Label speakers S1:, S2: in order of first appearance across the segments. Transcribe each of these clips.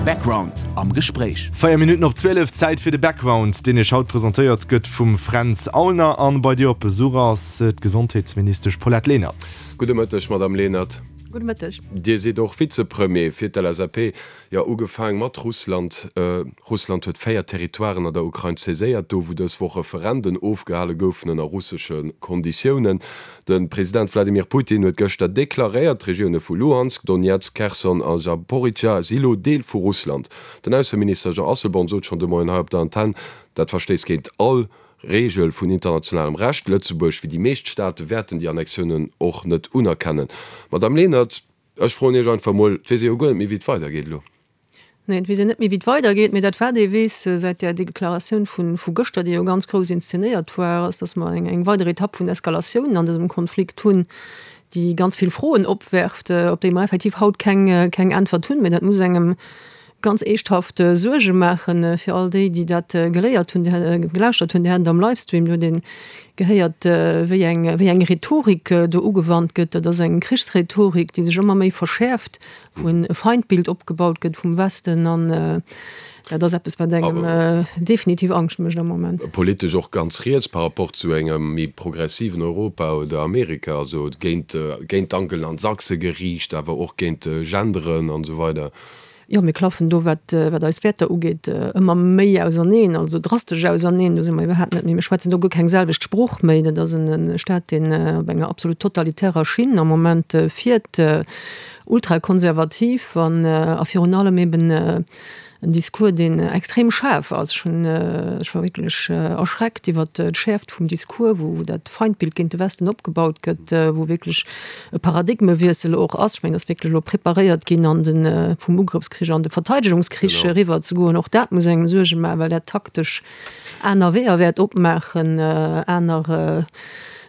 S1: Background am Gespréich.
S2: 4 Minutten op 12, Zäit fir de Background, deen Iech haut presentéiert gëtt vum Fränz Aulner. An bei dir op Besuch ass d'Gesondheetsministesch Paulette Lenert.
S3: Gudde Mëtteg, Madamm Lenert.
S4: Gudde Mëtteg.
S3: Dir sidd och Vizepremier fir d'LSAP. Jo, ugefaang mat Russland. Russland huet 4 Territoiren an der Ukrain saiséiert, do wou dës Woch Referenden ofgehale goufen ënner russesche Konditiounen. De President Wladimir Putin huet gëschter deklaréiert, d'Regioune vu Luhansk, Donetsk, Kherson a Zaporizhzhia si lo Deel vu Russland. Den Ausseminister Jean Asselborn sot schonn de Moien hei op der Antenn, dat verstéisst géint all Reegel vun internationalem Recht. Lëtzebuerg, wéi déi meescht Staate wäerten déi Annexiounen och net unerkennen. Madamm Lenert, Ech froen Iech einfach mol, et weess ee jo guer net méi wéi et weidergeet elo.
S4: Nee, et weess een net méi wéi et weidergeet, mee dat wat ee weess säit där Deklaratioun vu gëschter, déi jo ganz grouss inszenéiert war, ass, datt mer eng weider Etapp vun Eskalatioun an dësem Konflikt hunn, déi ganz vill Froen opwerft, op déi mer effektiv haut keng Äntwert hunn. Mee dat muss engem Ganz eeschthaft Suerge maachen fir all déi, déi dat geléiert hunn, gelauschtert hunn, déi haten et am Livestream, do huet ee gehéiert, wéi eng, wéi eng Rhetorik do ugewannt gëtt. Dat ass eng Krichsrhetorik, déi sech ëmmer méi verschäerft, wou e Feindbild opgebaut gëtt vum Westen. An dat ass eppes, wat engem definitiv Angscht mécht am Moment.
S3: Politesch och ganz riets par rapport zu engem méi progressiven Europa oder Amerika, also géint, géint d'Angelen an d'Sachse geriicht, awer och géint Genderen an esou weider.
S4: Jo, mir klaffen do, wat, wat eis Wäerter ugeet, ëmmer méi auserneen, also drastesch auserneen. Do si mer iwwerhaapt net méi, mir schwätzen do guer keng selwecht Sprooch méi. Dat ass en Staat, deen op enger absolut totalitärer Schinn am Moment fiert, ultrakonservativ an a virun allem eben en Discours, deen extrem schaarf ass. Ech hunn, ech war wierklech erschreckt iwwert d'Schäerft vum Discours, wou dat Feindbild géint de Westen opgebaut gëtt, wou wierklech e Paradigmewiessel och ass. Ech mengen, datt wierklech elo preparéiert ginn an de vum Ugrëffskrich an de Verteidegungskrich eriwwer ze goen. Och dat muss engem Suerge maachen, well dat taktesch aner Weeër wäert opmaachen, aner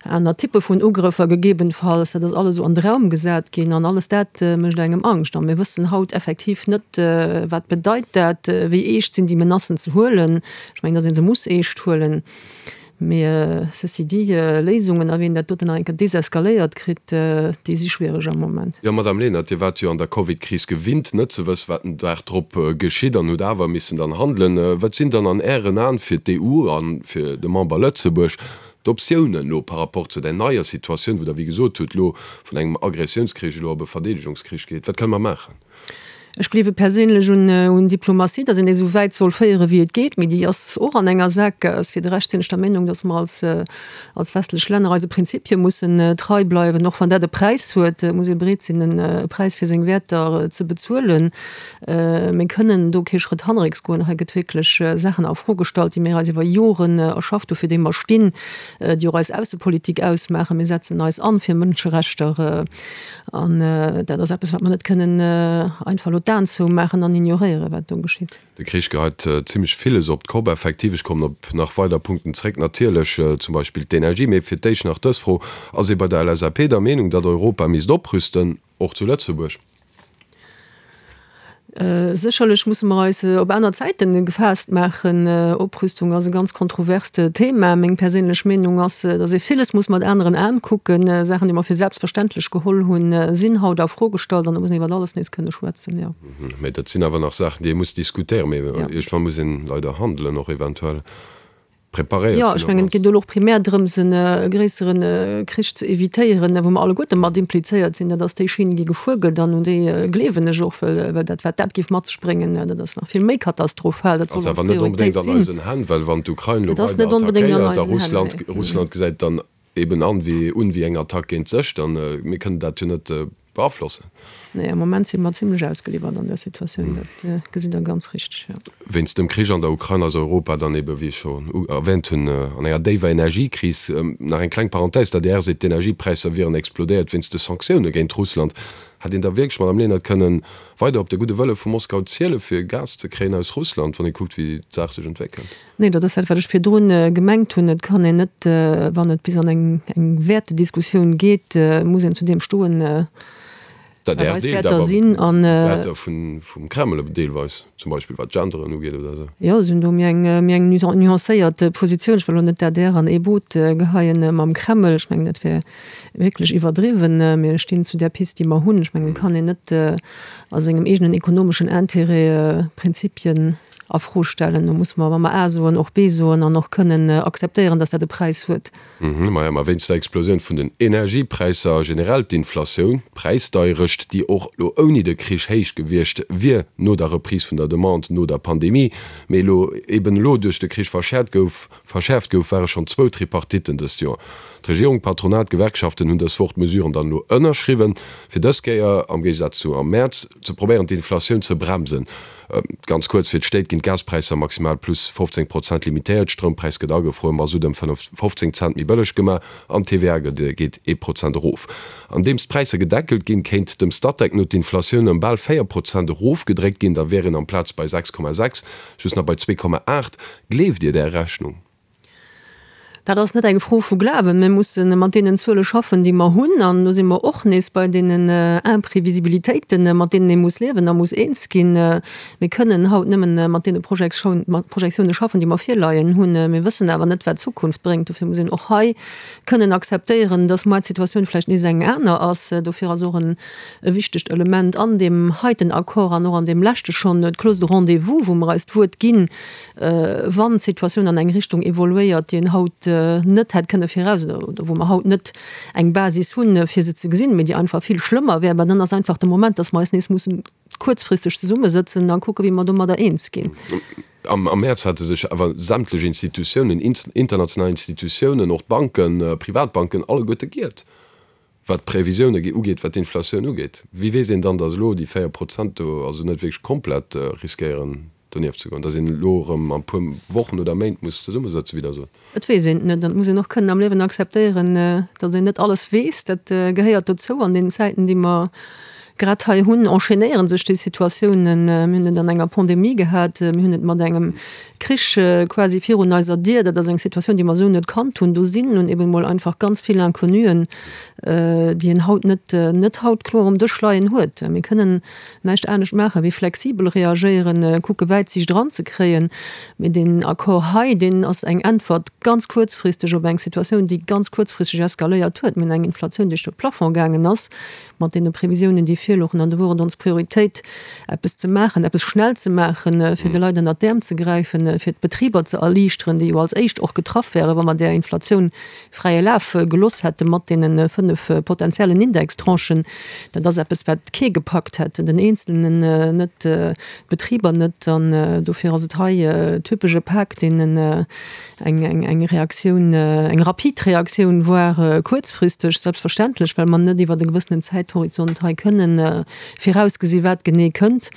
S4: aner Typpe vun Ugrëffer gegebenfalls. Dat ass alles esou an de Raum gesat ginn an alles dat mécht engem Angscht. A mir wëssen haut effektiv net, wat bedeit dat, wéi eescht sinn déi Menacen ze huelen. Ech mengen, datt ee se muss eescht huelen. Mee ceci dit, Léisungen a wéi een dat doten nach eng Kéier deseskaléiert kritt, déi si schwiereg am Moment.
S3: Jo, Madame Lenert, Dir waart jo an der Covid-Kris gewinnt, net ze wëssen, wat den Dag drop geschitt an hutt awer missen dann handelen. Wat sinn dann an Ären Aen fir d'EU a fir de Member Lëtzebuerg d'Optiounen elo par rapport zu där neier Situatioun, wou Der, wéi gesot hutt, elo vun engem Agressiounskrich elo op e Verdeedegungskrich geet? Wat kënne mer maachen?
S4: Ech gleewe perséinlech un Diplomatie, datt een déi esou wäit soll féiere wéi et geet, mee déi ass och an enger Saakgaass. Fir de Rescht sinn ech der Meenung, datt mer als als westlech Länner eise Prinzipie mussen trei bleiwen, och wann dat e Präis huet, muss ee bereet sinn e Präis fir seng Wäerter ze bezuelen. Mir kënnen do kee Schrëtt hannerrécks goen. Hei gëtt wierklech Saachen a Fro gestallt, déi mir eis iwwer Joren erschafft hu fir déi mer stinn, déi och eis Aussepolitik ausmaachen. Mir setzen eis an fir Mënscherechter. An dat ass eppes, wat mer net kënnen einfach elo d'Aen zoumaachen an ignoréieren, wat do geschitt.
S3: De Krich geheit zimmlech villes op d'Kopp. Effektiv, ech kommen op nach weider Punkten zréck, natierlech zum Beispill d'Energie. Mee fir d'éischt nach dës Fro, Ass ee bei der LSAP der Meenung, datt Europa misst oprüsten, och zu Lëtzebuerg?
S4: Sécherlech musse mer eis op aner Zäiten gefaasst maachen. Oprüstung ass e ganz kontroverst Thema. Meng perséinlech Meenung ass, datt ee villes muss mat aneren Aen kucken. Saachen, déi mer fir selbstverständlech geholl hunn, sinn haut a Fro gestallt an do muss een iwwer alles nees kënne schwätzen, jo.
S3: Mä dat sinn awer nach Saachen, déi ee muss diskutéieren. Mee iergendwann muss een leider handelen och eventuell. Preparéiert
S4: Jo, ech mengen, et geet elo och primär drëms, e gréissere Krich ze evitéieren, wou mer alleguerte mat implizéiert sinn. Dat ass déi Schinn, déi gefuer gëtt, an un déi gleewen ech och, well dat, wat dat géif mat sech bréngen, dat ass nach vill méi katastrophal.
S3: Dat soll ons Prioritéit sinn. Ass awer net onbedéngt an eisen Hänn, well wann d'Ukrain elo weider attackéiert a Russland, Russland gesäit dann eben an wéi un wéi eng Attack géint sech, dann, mir kënnen dat jo net beaflossen.
S4: Nee, am Moment si mer zimlech ausgeliwwert an där Situatioun, dat gesitt Der ganz richteg, jo.
S3: Wéinst dem Krich an der Ukrain ass Europa dann ebe, wéi ech scho erwähnt hunn, an enger déiwer Energiekris. Nach eng kleng Parenthèse, D'ADR seet, d'Energiepräisser wieren explodéiert wéinst de Sanktioune géint Russland. Hätt een da wierklech, Madamm Lenert, kënnen weider op de gudde Wëlle vu Moskau ziele fir Gas ze kréien aus Russland, wann ee kuckt, wéi d'Saach sech entwéckelt?
S4: Nee, dat ass dat, wat ech virdrun gemengt hunn. Et kann een net, wann et bis an eng Wäertediskussioun geet, muss een zu deem stoen. Wat
S3: D'ADR
S4: eis
S3: deelt
S4: Wäerter
S3: awer
S4: sinn an.
S3: Wäerter vum Kreml deelweis, zum Beispill wat d'Genderen ugeet oder esou.
S4: Jo, si hunn do méi eng, méi eng nuancéiert Positioun. Ech wëll elo net d'ADR an ee Boot geheien mam Kreml. Ech mengen, dat wär wierklech iwwerdriwwen. Mir stinn zu där Pist, déi mer hunn. Ech mengen, et kann een net a sengem eegenen ekonomeschen Intérêt Prinzipien a Fro stellen. Do muss mer, wa mer A soen, och B soen an och kënnen akzeptéieren, dass dat e Präis huet.
S3: Maja, ma wéinst der Explosioun vun den Energiepräisser a generell d'Inflatioun, d'Präisdeierecht, déi och elo ouni de Krich héich gewiescht wier no der Reprise vun der Demande no der Pandemie, mee elo eben elo duerch de Krich verschäert gouf, verschäerft gouf, ware schonn zwou Tripartitten dëst Joer. D'Regierung, d'Patronat, d'Gewerkschaften hunn dës Woch d'Mesuren dann elo ënnerschriwwen, fir dës Kéier, am Géigesaz zu am Mäerz, ze probéieren d'Inflatioun ze bremsen. Ganz kuerz, Fir d'Stéit ginn d'Gaspräisser maximal plus 15 Prozent limitéiert, Stroumpräis gëtt agefruer, Masutt ëm 15 Cent méi bëlleg gemaach an d'TVA geet ee Prozent erof. Andeems d'Präisser gedeckelt ginn, kéint dem Statec no d'Inflatioun ëm bal 4 Prozent erofgedréckt ginn, da wier een amplaz bei 6,6 just nach bei 2,8. Gleeft Dir där Rechnung?
S4: Dat ass net eng Fro vu Glawen. Mir musse mat deenen Zuele schaffen, déi mer hunn. An do si mer och nees bei deenen Imprévisibilitéiten, mat deenen ee muss liewen a muss eens ginn. Mir kënnen haut nëmmen mat deene Projektioune schaffen, déi mer virleien hunn. Mir wëssen awer net, wat d'Zukunft bréngt. Dofir muss een och hei kënnen akzeptéieren, dass muer d'Situatioun vläicht nees eng aner ass. Dofir ass och e wichtegt Element an deem heiten Accord an och an deem leschte schonn d'Clause de rendez-vous, wou mer eis d'Wuert ginn, wann d'Situatioun an eng Richtung evoluéiert, déi een haut net hätt kënne viraus oder wou mer haut net eng Basis hunn, fir se ze gesinn, mee déi einfach vill schlëmmer wär, mä dann ass einfach de Moment, dass mer eis nees mussen kuerzfristeg zesummesëtzen a kucken, wéi mer domadder eens ginn.
S3: Am Mäerz hate sech awer sämtlech Institutiounen, international Institutiounen, och d'Banken, Privatbanken, alleguerte giert. Wat d'Previsioune ugeet, wat d'Inflatioun ugeet, wéi weess een dann, datt elo déi 4 Prozent do also net wierklech komplett riskéieren donieft ze goen, datt een elo erëm an e puer Wochen oder Méint muss zesummesëtzen, wéi Der sot?
S4: Et weess een et net an et muss een och kënnen am Liewen akzeptéieren, datt een net alles weess. Dat gehéiert dozou. An deenen Zäiten, déi mer grad hei hunn, enchaînéiere sech déi Situatiounen. Mir hunn et an enger Pandemie gehat, mir hunn et mat engem Krich quasi virun eiser Dier. Dat ass eng Situatioun, déi mer esou net kannt hunn. Do sinn nun eben emol einfach ganz vill Inconnuen, déi een haut net, net haut kloer um Dësch leien huet. Mir kënnen näischt anescht maachen, wéi flexibel reagéieren, kucke Wäitsiicht eranzekréien. Mee deen Accord hei, deen ass eng Äntwert ganz kuerzfristeg op eng Situatioun, déi ganz kuerzfristeg eskaléiert huet. Mir hunn eng Inflatioun, déi duerch de Plafond gaangen ass. mat deene Previsiounen, déi virlouchen, an do wor et ons Prioritéit, eppes ze maachen, eppes schnell ze maachen, fir de Leit ënnert d'Äerm ze gräifen, fir d'Betriber ze erliichteren, déi jo als éischt och getraff wären, wa mer där Inflatioun fräie Laf geloss hätte mat deene 5 potenziellen Indextranchen. Dat ass eppes, wat kee gepackt hätt, den Eenzelnen net, d'Betriber net. An dofir ass et hei typesch e Pak, deen Eng Reaktioun, eng rapid Reaktioun, voire kuerzfristeg, selbstverständlech, well mer net iwwer e gewëssenen Zäithorizont hei kënnen virausgesi wat genee kënnt.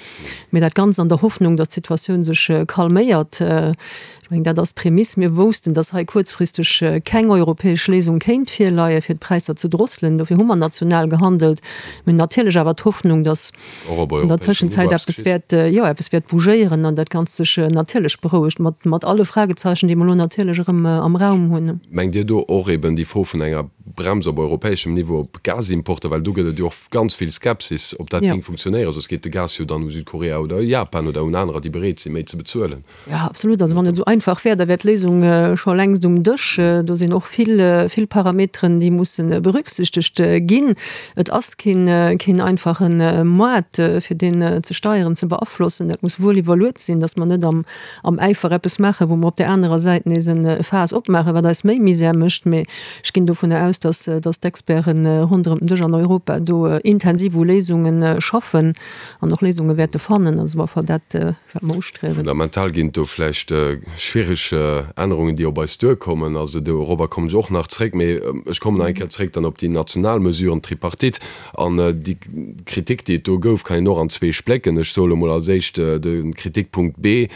S4: Mee dat Ganzt an der Hoffnung, datt d'Situatioun sech calméiert. Ech mengen, dat ass d'Prämiss. Mir woussten, datt hei kuerzfristeg keng europäesch Léisung kéint virleien, fir d'Präisser ze drosselen. Dofir hu mer national gehandelt. Mir hunn natierlech awer d'Hoffnung, datt
S3: Och op
S4: an der
S3: europäeschem Niveau
S4: Tëschenzäit
S3: eppes
S4: eppes
S3: geschitt.
S4: wäert, jo, eppes wäert bougéieren an dat Ganzt sech natierlech berouegt, mat, mat alle Fragezeichen, déi mer elo natierlech erëm am Raum hunn.
S3: Mengt Dir do och eben déi Fro vun enger Brems op europäeschem Niveau op Gasimporter, well do gëtt et jo och ganz vill Skepsis, ob dat
S4: Jo.
S3: géing funktionéieren, soss geet de Gas jo dann u Südkorea oder u Japan oder un anerer, déi bereet sinn, méi ze bezuelen.
S4: Jo, absolut. Also wann et esou einfach wär, da wär d'Léisung scho längst um Dësch. Do sinn och vill, vill Parameteren, déi musse berücksichtegt ginn. Et ass keen, keen einfache Moart, fir deen ze steieren, ze beaflossen. Dat muss wuel iwwerluet sinn, datt mer net am, am Äifer eppes maachen, wou mer op där anerer Säit nees e Faass opmaachen, wat eis méi Misär mécht. Mee ech ginn dovunner aus, datt, datt d'Experte ronderëm den Dësch an Europa do intensiv u Léisunge schaffen an och Léisunge wäerte fannen. Also op alle Fall dat. Wat mer ustriewen.
S3: Fundamental ginn et do vläicht schwiereg Ännerungen, déi op eis duerkommen. Also dorobber kommen ech och nach zréck. Mee ech kommen nach eng Kéier zréck dann op déi national Mesuren, d'Tripartite. An déi Kritik, déi et do gouf, kann een och an zwee splécken. Ech soe lo mol als éischt de Kritikpunkt B,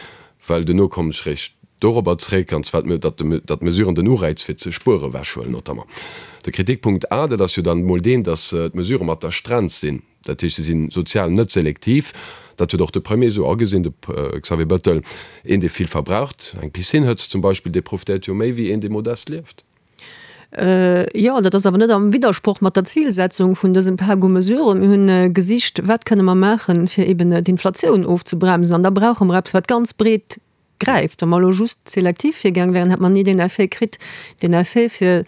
S3: well duerno kommen ech réischt dorobber zréck, an zwar, datt d'Mesuren den Ureiz fir ze spuere ewechhuelen notamment. De Kritikpunkt A, dat ass jo dann emol deen, datt d'Mesurë mat der Strenz sinn. Dat heescht, se si sozial net selektiv. Dat huet och de Premier esou agesinn, de Xavier Bettel. Een, dee vill verbraucht, eng Piscine hëtzt zum Beispill, dee profitéiert jo méi wéi een, dee modest lieft.
S4: Jo, dat ass awer net am Widdersproch mat der Zilsetzung vun dësem Pak u Mesuren. Mir hunn gesicht, wat kënne mer maachen, fir eben d'Inflatioun ofzebremsen. An da brauche mer eppes, wat ganz breet gräift. Wa mer elo just selektiv virgaang wären, hätt mer ni deen Effet kritt. Deen Effet, fir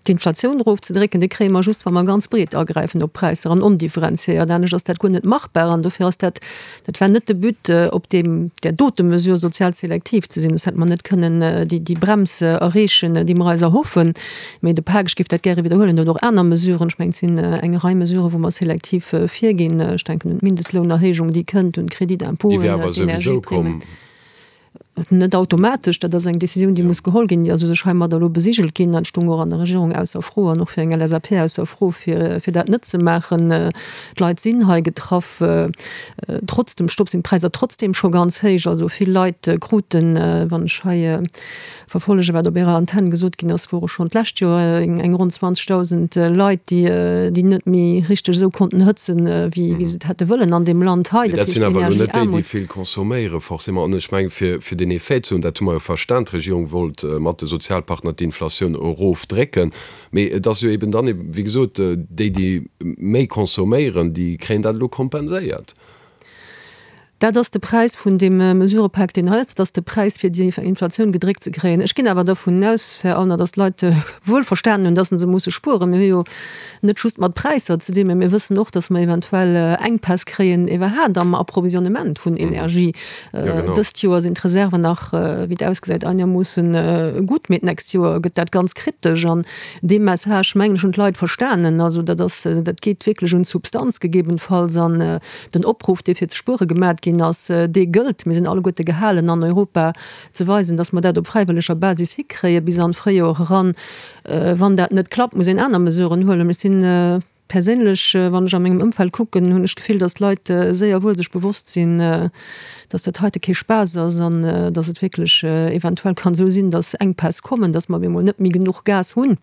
S4: d'Inflatioun erofzedrécken, dee kréie mer just, wa mer ganz breet agräifen op d'Präisser an ondifferenziéiert. Anescht ass dat guer net machbar. An dofir ass dat, dat war net de But, op deem, där dote Mesure sozial selektiv ze sinn. Soss hätte mer net kënnen déi, déi Brems erreechen, déi mer eis erhoffen. Mee de Pak, ech géif dat gäre widderhuelen, huet och aner Mesuren. Ech mengen, et sinn eng Rei Mesuren, wou mer selektiv virginn. Ech denken un d'Mindestlounerhéijung, déi kënnt, un
S3: d'Crédit-d'impôten, Déi wär awer souwisou
S4: komm. Net automatesch, dat ass eng Décisioun, déi muss geholl ginn, déi ass u sech heimadder elo besigelt ginn. Dat stoung och an der Regierung ausser Fro an och fir eng LSAP ausser Fro, fir fir dat net ze maachen. D'Leit sinn hei getraff. Trotz dem Stopp sinn d'Präisser trotzdeem scho ganz héich. Also vill Leit kruten, wann ech hei Verfollege wat op Ärer Antenn gesot ginn ass, wore schonn d'lescht Joer eng ronn 20.000 Leit, déi déi net méi richteg esou konnten hëtzen, wéi wéi se et hätte wëllen an deem Land hei.
S3: Mee dat sinn awer elo net déi, déi vill consomméieren, forcément. An ech mengen, fir fir deen Effet ze hunn, dat hu mer jo verstan, d'Regierung wollt mat de Sozialpartner d'Inflatioun erofdrécken. Mee et ass jo eben dann, wéi gesot, déi, déi méi consomméieren, déi kréien dat elo kompenséiert.
S4: Dat ass de Präis vun deem Mesurëpak, deen hei ass. Dat ass de Präis, fir déi Inflatioun gedréckt ze kréien. Ech ginn awer dervun aus, Här Allner, datt d'Leit wuel verstanen hunn, datt se musse spueren. Mir hu jo net just mat Präisser ze dinn, mä mir wëssen och, datt mer eventuell Enkpäss kréien iwwerhaapt am Approvisionnement vun Energie. Dëst Joer sinn d'Reserven nach, wéi et ausgesäit, einermoosse gutt, mee d'nächst Joer gëtt dat ganz kritesch. An dee Message, mengen ech, hunn d'Leit verstanen. Also dat ass, dat geet wierklech un d'Substanz gegebenfalls. An Den Opruff, dee fir ze spuere gemat ginn ass, dee gëllt. Mir sinn alleguerte gehalen an Europa ze weisen, datt mer dat op fräiwëlleger Basis hikréie bis an d'Fréijoer eran. Wann dat net klappt, muss een aner Mesuren huelen. Ech sinn perséinlech, wann ech a mengem Ëmfeld kucken, hunn ech d'Gefill, datt d'Leit séier wuel sech bewosst sinn, datt dat heite kee Spaass ass an datt et wierklech eventuell kann esou sinn, datt Enkpäss kommen, datt mer op eemol net méi genuch Gas hunn.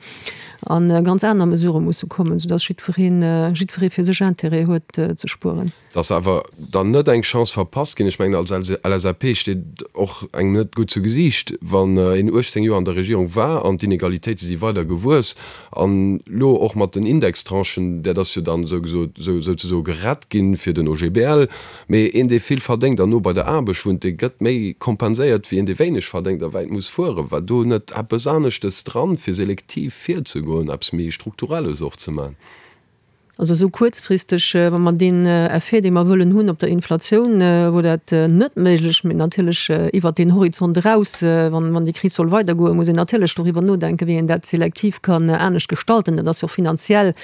S4: An ganz aner Mesurë musse kommen, soudass jiddwereen, jiddweree fir sech Intérêt huet ze spueren.
S3: Dass awer dann net eng Chance verpasst ginn. Ech mengen, als LSAP steet och engem net gutt zu Gesiicht, wann een 18 Joer an der Regierung war an d'Inegalitéite si weider gewuess an elo och mat den Indextranchen, dat ass jo dann souzesoe gerett ginn fir den OGBL, Mee een, dee vill verdéngt an no bei der Aarbecht wunnt, dee gëtt méi kompenséiert wéi een, dee wéineg verdéngt a wäit muss fueren. War do net eppes aneschtes dran, fir selektiv virzegoen, eppes méi Strukturelles och ze maachen?
S4: Also esou kuerzfristeg, wa mer deen Effet, dee mer wëllen hunn op der Inflatioun, wor dat net méiglech. Mee natierlech iwwert deen Horizont eraus, wann déi Kris soll weidergoen, muss een natierlech doriwwer nodenken, wéi een dat selektiv kann anescht gestalten. Dat ass jo och finanziell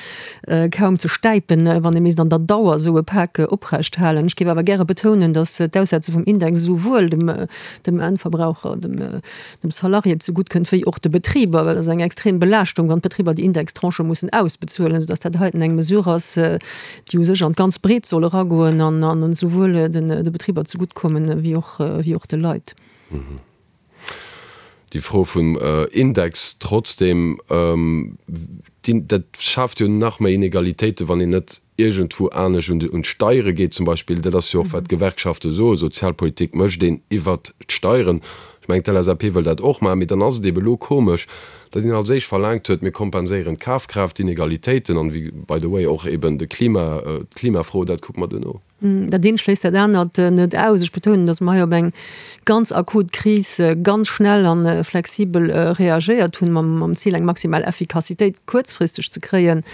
S4: kaum ze stäipen, wann ee misst an der Dauer esou e Pak oprecht halen. Ech géif awer gäre betounen, datt d'Aussetze vum Index esouwuel dem Endverbraucher, dem Salarié zegutt kënnt, wéi och de Betriber, well et ass eng extrem Belaaschtung, wann d'Betriber déi Indextranchë mussen ausbezuelen, soudatt dat heiten eng Mesure ass, déi u sech an d'ganz Breet soll eragoen an esouwuel de Betriber zegutt kommen, wéi och de Leit.
S3: Déi Fro vum Index trotzdem, dat schaaft jo nach méi Inegalitéiten, wann een net iergendwou anescht un d'Steiere geet zum Beispill. Dat ass jo och, wat d'Gewerkschafte soen, Sozialpolitik mécht een iwwert d'Steieren. Ech mengen, d'LSAP wëll dat och maachen. Mee dann ass et eebe elo komesch, datt een als éischt verlaangt huet, mir kompenséieren d'Kafkraaft-Inegalitéiten an, by the way, och eeben de Klima, d'Klimafro, dat kucke mer duerno.
S4: Dat eent schléisst dat anert net aus. Ech betounen, datt mer hei op eng ganz akut Kris ganz schnell a flexibel reagéiert hunn, mam Zil, eng maximal Effikassitéit kuerzfristeg ze kréien.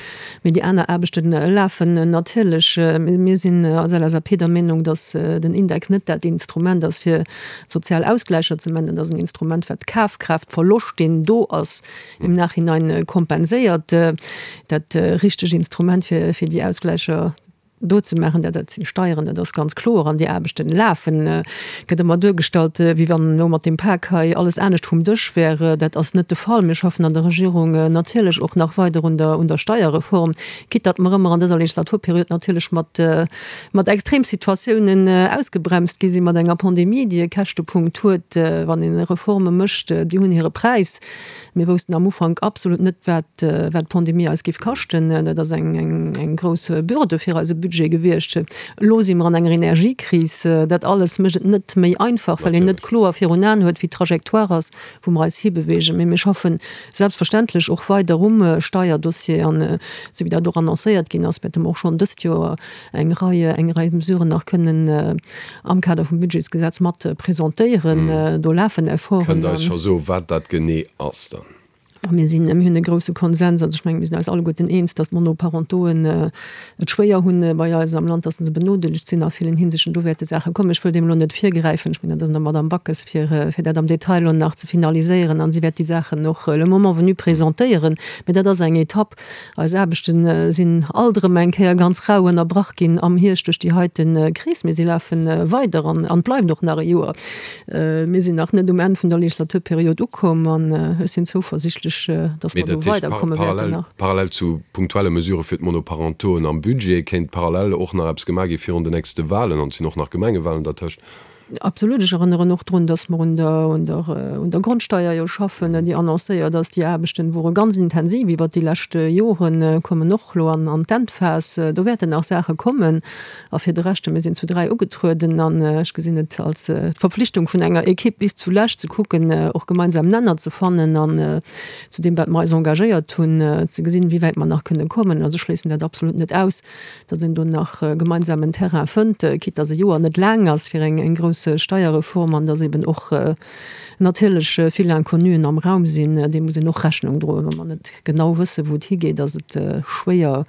S4: Mee déi aner Aarbechte lafen natierlech. Mir sinn als LSAP der Meenung, datt den Index net dat Instrument ass, fir sozial Ausgläicher ze maachen. Dat ass en Instrument, wat Kafkraaftverloscht, deen do ass, im Nachhinein kompenséiert. Dat richteg Instrument, fir déi Ausgläicher do ze maachen, dat dat sinn Steieren, dat ass ganz kloer, an déi Aarbechten lafen. Et gëtt ëmmer duergestallt, wéi wann elo mat deem Pak hei alles anescht vum Dësch wär. Dat ass net de Fall. Mir schaffen an der Regierung natierlech och nach weider un der un der Steierreform, quitte datt mer ëmmer an dëser Legislaturperiod natierlech mat mat Extremsituatiounen ausgebremst gi sinn, mat enger Pandemie, déi e Käschtepunkt huet. Wann een Reforme mécht, déi hunn hire Präis. Mir woussten am Ufank absolut net, wat wat d'Pandemie eis géif kaschten. Dat ass eng eng eng grouss Bürde fir eise Budget. Budget gewiescht. Elo si mer an enger Energiekris. Dat alles mécht et net méi einfach, well een net kloer virun Aen huet, wéi d'Trajectoire ass, wou mer eis hibewegen. Mee mir schaffen selbstverständlech och weider um Steierdossier. An esou wéi dat och annoncéiert ginn ass, wäerte mer och schonn dëst Joer eng Rei, eng Rei Mesuren nach kënnen am Kader vum Budgetsgesetz mat presentéieren. Do lafen Efforten.
S3: Kënnt Der eis scho soen, wat dat genee ass dann?
S4: Mir sinn, mir hunn e grouse Konsens, also ech mengen, mir sinn eis alleguerten eens, datt d'Monoparentoen et schwéier hunn bei eis am Land, datt se benodeelegt sinn a villen Hinsichten. Do wäerte Saache kommen. Ech wëll deem elo net virgräifen. Ech mengen, dat ass un der Madamm Backes, fir, fir dat am Detail elo nach ze finaliséieren an si wäert déi Saachen och le moment venu presentéieren. Mä dat ass eng Etapp. Eis Aarbechte sinn alt erëm eng Kéier ganz rau ënnerbrach ginn am Hierscht duerch déi heite Kris, mee si lafe weider an et bleift och nach e Joer. Mir sinn nach net um Enn vun der Legislaturperiod ukomm an ech sinn zouversichtlech, datt mer do weiderkomme wäerten nach.
S3: Parallel zu punktuelle Mesurë fir d'Monoparentoen am Budget kéint parallel och nach eppes gemaach gi virun den nächste Wahlen, an et sinn och nach Gemengewahlen dertëscht.
S4: Absolut. Ech erënneren och drun, dass mer un der, un der, un der Grondsteier jo schaffen, déi annoncéiert ass. Déi Aarbechten wore ganz intensiv iwwert déi lescht Joren, kommen och elo an, an d'Endphas. Do wäerten nach Saache kommen. A fir de Rescht, mir sinn zu 3 ugetrueden an ech gesinn et als d'Verpflichtung vun enger Equipe bis zulescht ze kucken, och gemeinsam Nenner ze fannen an zu deem, wat mer eis engagéiert hunn, ze gesinn, wéi wäit mer nach kënne kommen. Also ech schléissen dat absolut net aus. dass een do nach gemeinsamen Terrain fënnt, quitte dass e Joer net laang ass fir eng grouss Steierreform an dass eben och natierlech vill Inconnuen am Raum sinn. Deem muss een och Rechnung droen. Wa mer net genau wëssen, wou et higeet, ass et schwéier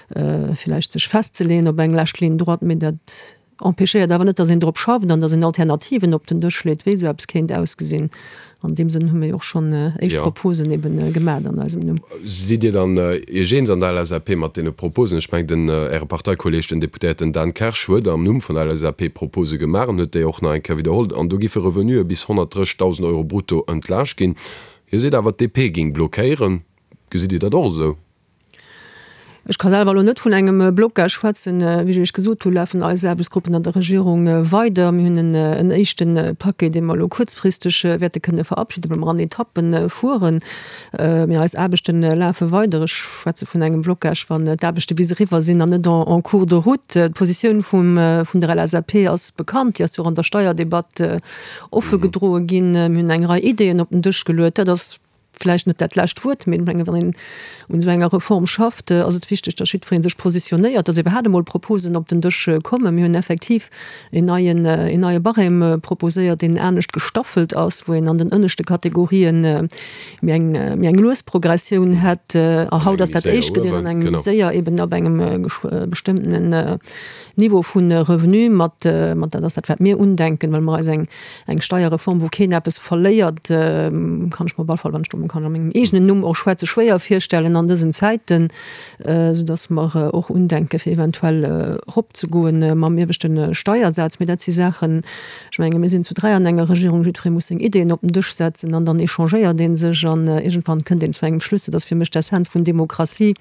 S4: villäicht sech festzeleeën op eng lescht Ligne droite. Mee dat Empêchéiert awer net, datt een drop schafft an datt een Alternativen op den Dësch leet, wéi esou eppes kéint ausgesinn. An deem Sënn hu mir jo och schonn éischt Proposen eben gemat an eisem Numm.
S3: Sidd Dir dann Iech eens an der LSAP mat deene Proposen? Ech mengen, den Äre Parteikolleeg, den Deputéierten Dan Kersch, huet am Numm vun der LSAP Propose gemaach an huet déi och nach eng Kéier widderholl. An do giffe Revenuë bis 130.000 Euro brutto entlaascht ginn. Hie seet awer, d'DP géing blockéieren. Gesitt Dir dat och esou?
S4: Ech ka selwer elo net vun engem Blocage schwätzen. Wéi ech Iech gesot hunn, lafen eis Aarbechtsgruppen an der Regierung weider. Mir hunn en éischte Paquet, dee mer elo kuerzfristeg wäerte kënne verabschiden, well mer an Etappe fueren. Mee eis Aarbechte lafe weider. Ech schwätze vun engem Blocage, wann d'Aarbechte bis eriwwer sinn an net en cours de route. D'Positioun vun der LSAP ass bekannt. Déi ass jo och an der Steierdebatt offe gedroe ginn. Mir hunn eng Rei Ideeën op den Dësch geluet. Dat ass vläicht net dat lescht Wuert, mee ech mengen, wann een un esou enger Reform schafft, ass et wichteg, datt jiddweree sech positionéiert, datt iwwerhaapt emol Proposen op den Dësch kommen. Mir hunn effektiv en neien, en neie Barème proposéiert, deen anescht gestaffelt ass, wou een an den ënneschte Kategorien méi eng, méi eng lues Progressioun hätt. A haut ass dat éischt gedeelt an engem méi séier eben ab engem bestëmmtenen Niveau vu Revenu mat, mat, dat ass dat, wat mir undenken, well mer eis eng, Eng Steierreform, wou keen eppes verléiert, kann ech mer op alle Fall, wann ech do kann a mengem eegenen Numm och schwätzen, schwéier virstellen an dësen Zäiten, soudass mer och undenke fir eventuell eropzegoen mam ieweschte Steiersaz. Mee dat si Saachen, ech menge mir sinn zu 3 an enger Regierung, jiddweree muss seng Ideeën op den Dësch setzen an dann échangéiert ee sech an iergendwann kënnt een zu engem Schluss. Dat ass fir mech d'Essenz vun Demokratie.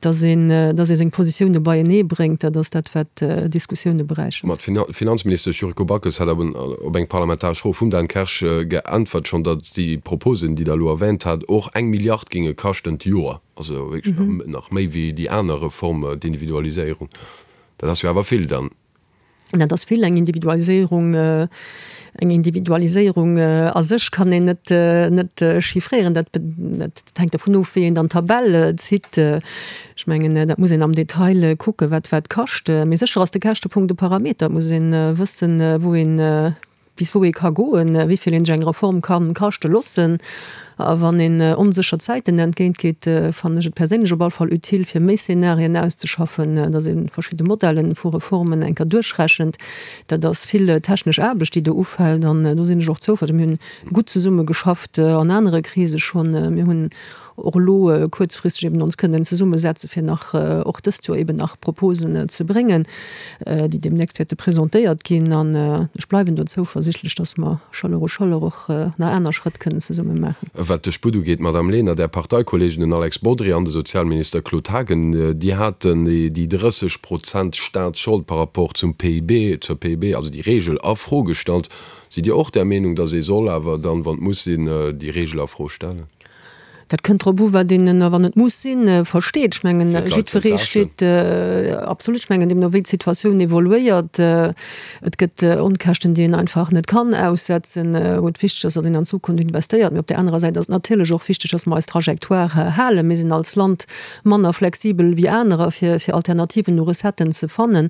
S4: Dass een, dass ee seng Positioune beienee bréngt, dat ass dat, wat Diskussioune beräichert.
S3: Ma d'Finanzministesch Yuriko Backes hat op eng parlamentaresch Fro vum Dan Kersch geäntwert schonn, datt déi Proposen, déi Der elo erwähnt hat, och eng Milliard géinge kaschten d'Joer. Also wierklech nach méi wéi déi aner Reform, d'Individualiséierung. Dat ass jo awer vill dann.
S4: Dat ass vill. Eng Individualiséierung, eng Individualiséierung a sech kann een net, net chiffréieren. Dat, dat hänkt dovun of, wéi een dann d'Tabell zitt. Ech mengen, dat muss een am Detail kucken, wat wat kascht. Mee sécher ass de Käschtepunkt e Parameter. Et muss ee wëssen, wou een, bis wou ee ka goen, wéi vill een sech eng Reform ka kaschte loossen. A wann een onsécher Zäiten entgéint geet, fannen ech et perséinlech op all Fall utile, fir méi Szenarien auszeschaffen, datt ee verschidde Modellen vu Reformen eng Kéier duerchrechent. Dat ass vill technesch Aarbecht, déi do ufält, an do sinn ech och zouversiichtlech. Mir hunn gutt zesumme geschafft an anere Krise schonn. Mir hunn och elo kuerzfristeg eben ons kënnen zesummesetze fir nach och dëst Joer eben nach Proposen ze bréngen, déi deemnächst wäerte presentéiert ginn. An ech bleiwen do zouversichtlech, dass mer Chaleur u Chaleur och nach aner Schrëtt kënnen zesumme maachen.
S3: Wat de Sputt ugeet, Madamm Lenert, Är Parteikollegen, den Alex Bodry an de Sozialminister Claude Haagen, déi haten déi 30 Prozent Staatsschold par rapport zum PIB, zur PIB, also déi Reegel a Fro gestallt. Sidd Dir och där Meenung, dass ee soll awer dann, wann et muss sinn, déi Reegel a Fro stellen?
S4: Dat kënnt drop u wat een ënner wann et muss sinn versteet. Ech mengen jiddweree steet, absolut, ech mengen deemno wéi d'Situatioun evoluéiert, et gëtt Onkäschten déi een einfach net kann aussetzen, wou et wichteg ass, datt een an d'Zukunft investéiert. Mee op där anerer Säit ass et natierlech och wichteg, datt mer eis Trajectoire halen. Mir sinn als Land manner flexibel wéi anerer fir fir Alternativen u Recetten ze fannen.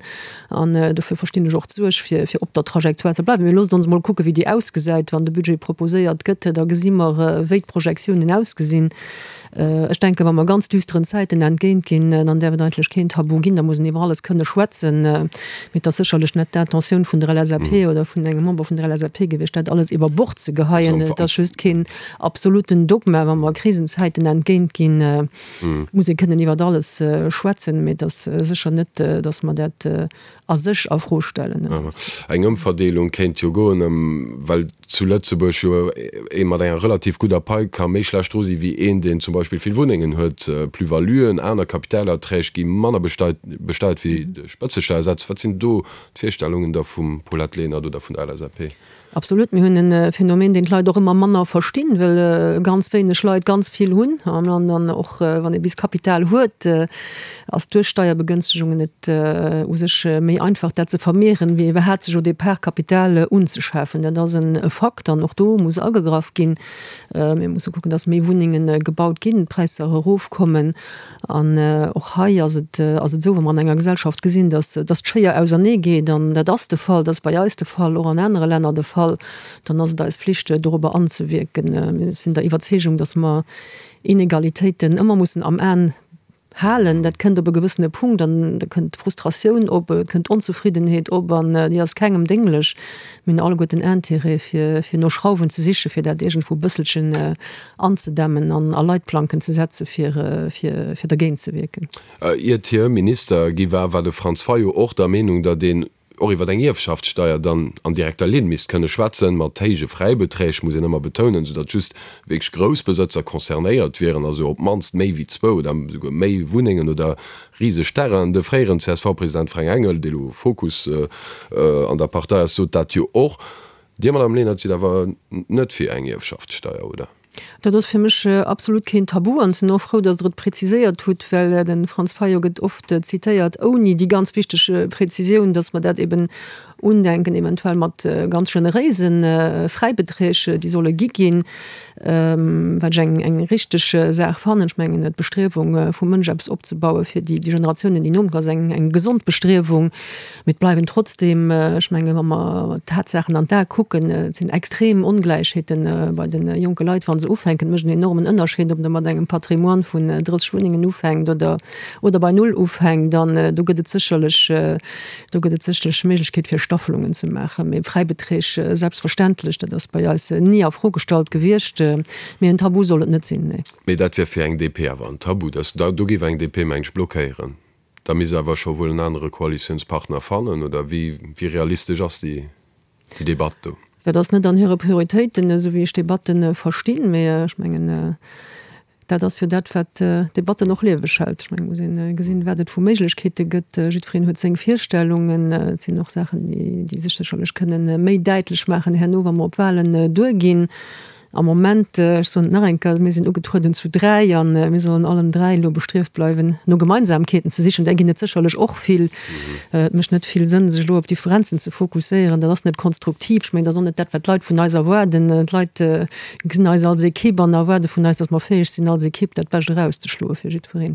S4: An dofir verstinn ech och d'Suerg, fir fir op der Trajectoire ze bleiwen. Mee loosst ons emol kucken, wéi déi ausgesäit, wann de Budget proposéiert gëtt. Da gesi mer, wéi d'Projektiounen ausgesinn. Ech denken, wa mer ganz düsteren Zäiten entgéint ginn, dann däerf et eigentlech keen Tabu ginn. Da muss een iwwer alles kënne schwätzen. Mee et ass sécherlech net d'Intentioun vun der LSAP oder vun engem Member vun der LSAP gewiescht, dat alles iwwer Bord ze geheien. Et ass just keen absoluten Dogma. Wa mer Krisenzäiten entgéint ginn, muss ee kënnen iwwert alles schwätzen, mee et ass sécher net, datt mer dat a sech a Fro stellen.
S3: Eng Ëmverdeelung kéint jo goen, well zu Lëtzebuerg jo ee mat enger relativ gudder Pai ka méi schlecht dru si wéi een, deen zum Beispill vill Wunnengen huet. Plus-valuen, aner Kapitalerträg gi manner besteiert wéi de Spëtzesteiersaz. Wat sinn do d'Virstellungen da vum Paulette Lenert oder vun der LSAP?
S4: Absolut, mir hunn e Phänomen, deen d'Leit och ëmmer manner verstinn, well ganz wéineg Leit ganz vill hunn am Land. An och wann ee bis Kapital huet, ass duerch Steierbegënstegungen et u sech méi einfach, dat ze vermehren, wéi iwwerhaapt sech au départ Kapital unzeschafen. Dat ass e Fakt an och do muss agegraff ginn. Mir musse kucken, dass méi Wunnenge gebaut ginn, d'Präisser erofkommen. An och hei ass et ass et esou, wa mer an enger Gesellschaft gesinn, dass dass d'Schéier ausernee geet, an dat ass de Fall, dat ass bei eis de Fall, och an anere Länner de Fall, dann ass et eis Flicht, dorobber anzewierken. Mir sinn der Iwwerzeegung, dass mer Inegalitéiten ëmmer mussen am An halen. Dat kënnt op e gewëssene Punkt an da kënnt Frustratioun op, et kënnt Onzefriddenheet op an déi ass kengem dénglech. Mir hunn alleguerten Intérêt, fir fir no Schrauwen ze sichen, fir dat iergendwou e bësselchen anzedämmen an a Leitplanken ze setze fir fir dergéint ze wierken.
S3: Iert hie Minister gi war, war de Franz Fayot och der Meenung, datt een och iwwer eng Ierfschaftssteier dann an direkter Linn misst kënne schwätzen, mat héije Fräibeträg, muss een ëmmer betounen, soudatt just wierklech grouss Besëtzer concernéiert wieren, also op d'mannst méi wéi zwou oder esouguer méi Wunnengen oder riseg Terrainen. De fréieren CSV-President Fränk Engel, dee lo Fokus an der Partei ass, sot dat jo och. Dir, Madame Lenert, sidd awer net fir eng Ierfschaftssteier, oder?
S4: Dat ass fir mech absolut keen Tabu an ech sinn och frou, datt Der et präziséiert hutt, well de Franz Fayot gëtt oft zitéiert ouni déi ganz wichteg Präzisioun, datt mer dat eben undenken, eventuell mat ganz generéise Fräibeträg, déi solle gi ginn, wat ech eng eng richteg Saach fannen. Ech mengen, d'Bestriewung vum Mënsch eppes opzebaue fir déi Generatiounen, déi no kommen, ass eng eng gesond Bestriewung. Mee et bleiwen trotzdem, ech mengen, wa mer d'Tatsaachen an d'Ae kucken, et sinn extrem Ongläichheete bei de jonke Leit, wa se ufänken. Et mécht en enormen Ënnerscheed, ob Der mat engem Patrimoine vun 30 Wunnengen ufänkt oder, oder bei null ufänkt. An do gëtt et sécherlech, do gëtt et sécherlech Méiglechkeet, fir Staffelungen ze maachen. Mee Fräibeträg, selbstverständlech, dat ass bei eis ni a Fro gestallt gewiescht. Mee en Tabu soll et net sinn, nee.
S3: Mee dat wier fir eng DP awer en Tabu. Do géif eng DP, meng ech, blockéieren. Da misst awer scho wuel en anere Koalitiounspartner fannen, oder wéi realistesch ass déi Debatt do?
S4: Dat ass net an hire Prioritéiten, esou wéi ech d'Debatte verstinn. Mee ech mengen, dat ass jo dat, wat d'Debatten och lieweg hält. Ech mengen, et muss ee gesinn, wat et vu Méiglechkeete gëtt. Jiddwereen huet seng Virstellungen. Et sinn och Saachen, déi sech sécherlech kënnen méi däitlech maachen herno, wa mer op Wahlen duerginn. Am Moment, ech soen et nach eng Kéier, mir sinn ugetrueden zu 3 a mir sollen allen 3 elo bestrieft bleiwen, no Gemeinsamkeeten ze sichen. Där ginn et sécherlech och vill. Et mécht net vill Sënn, sech elo op Differenzen ze fokusséieren. Dat ass net konstruktiv. Ech mengen, dat ass och net dat, wat d'Leit vun eis erwaarden. D'Leit gesinn eis als Ekipp an erwaarde vun eis, datt mer fäeg sinn, als Ekipp dat Bescht erauszeschloe fir jiddwereen.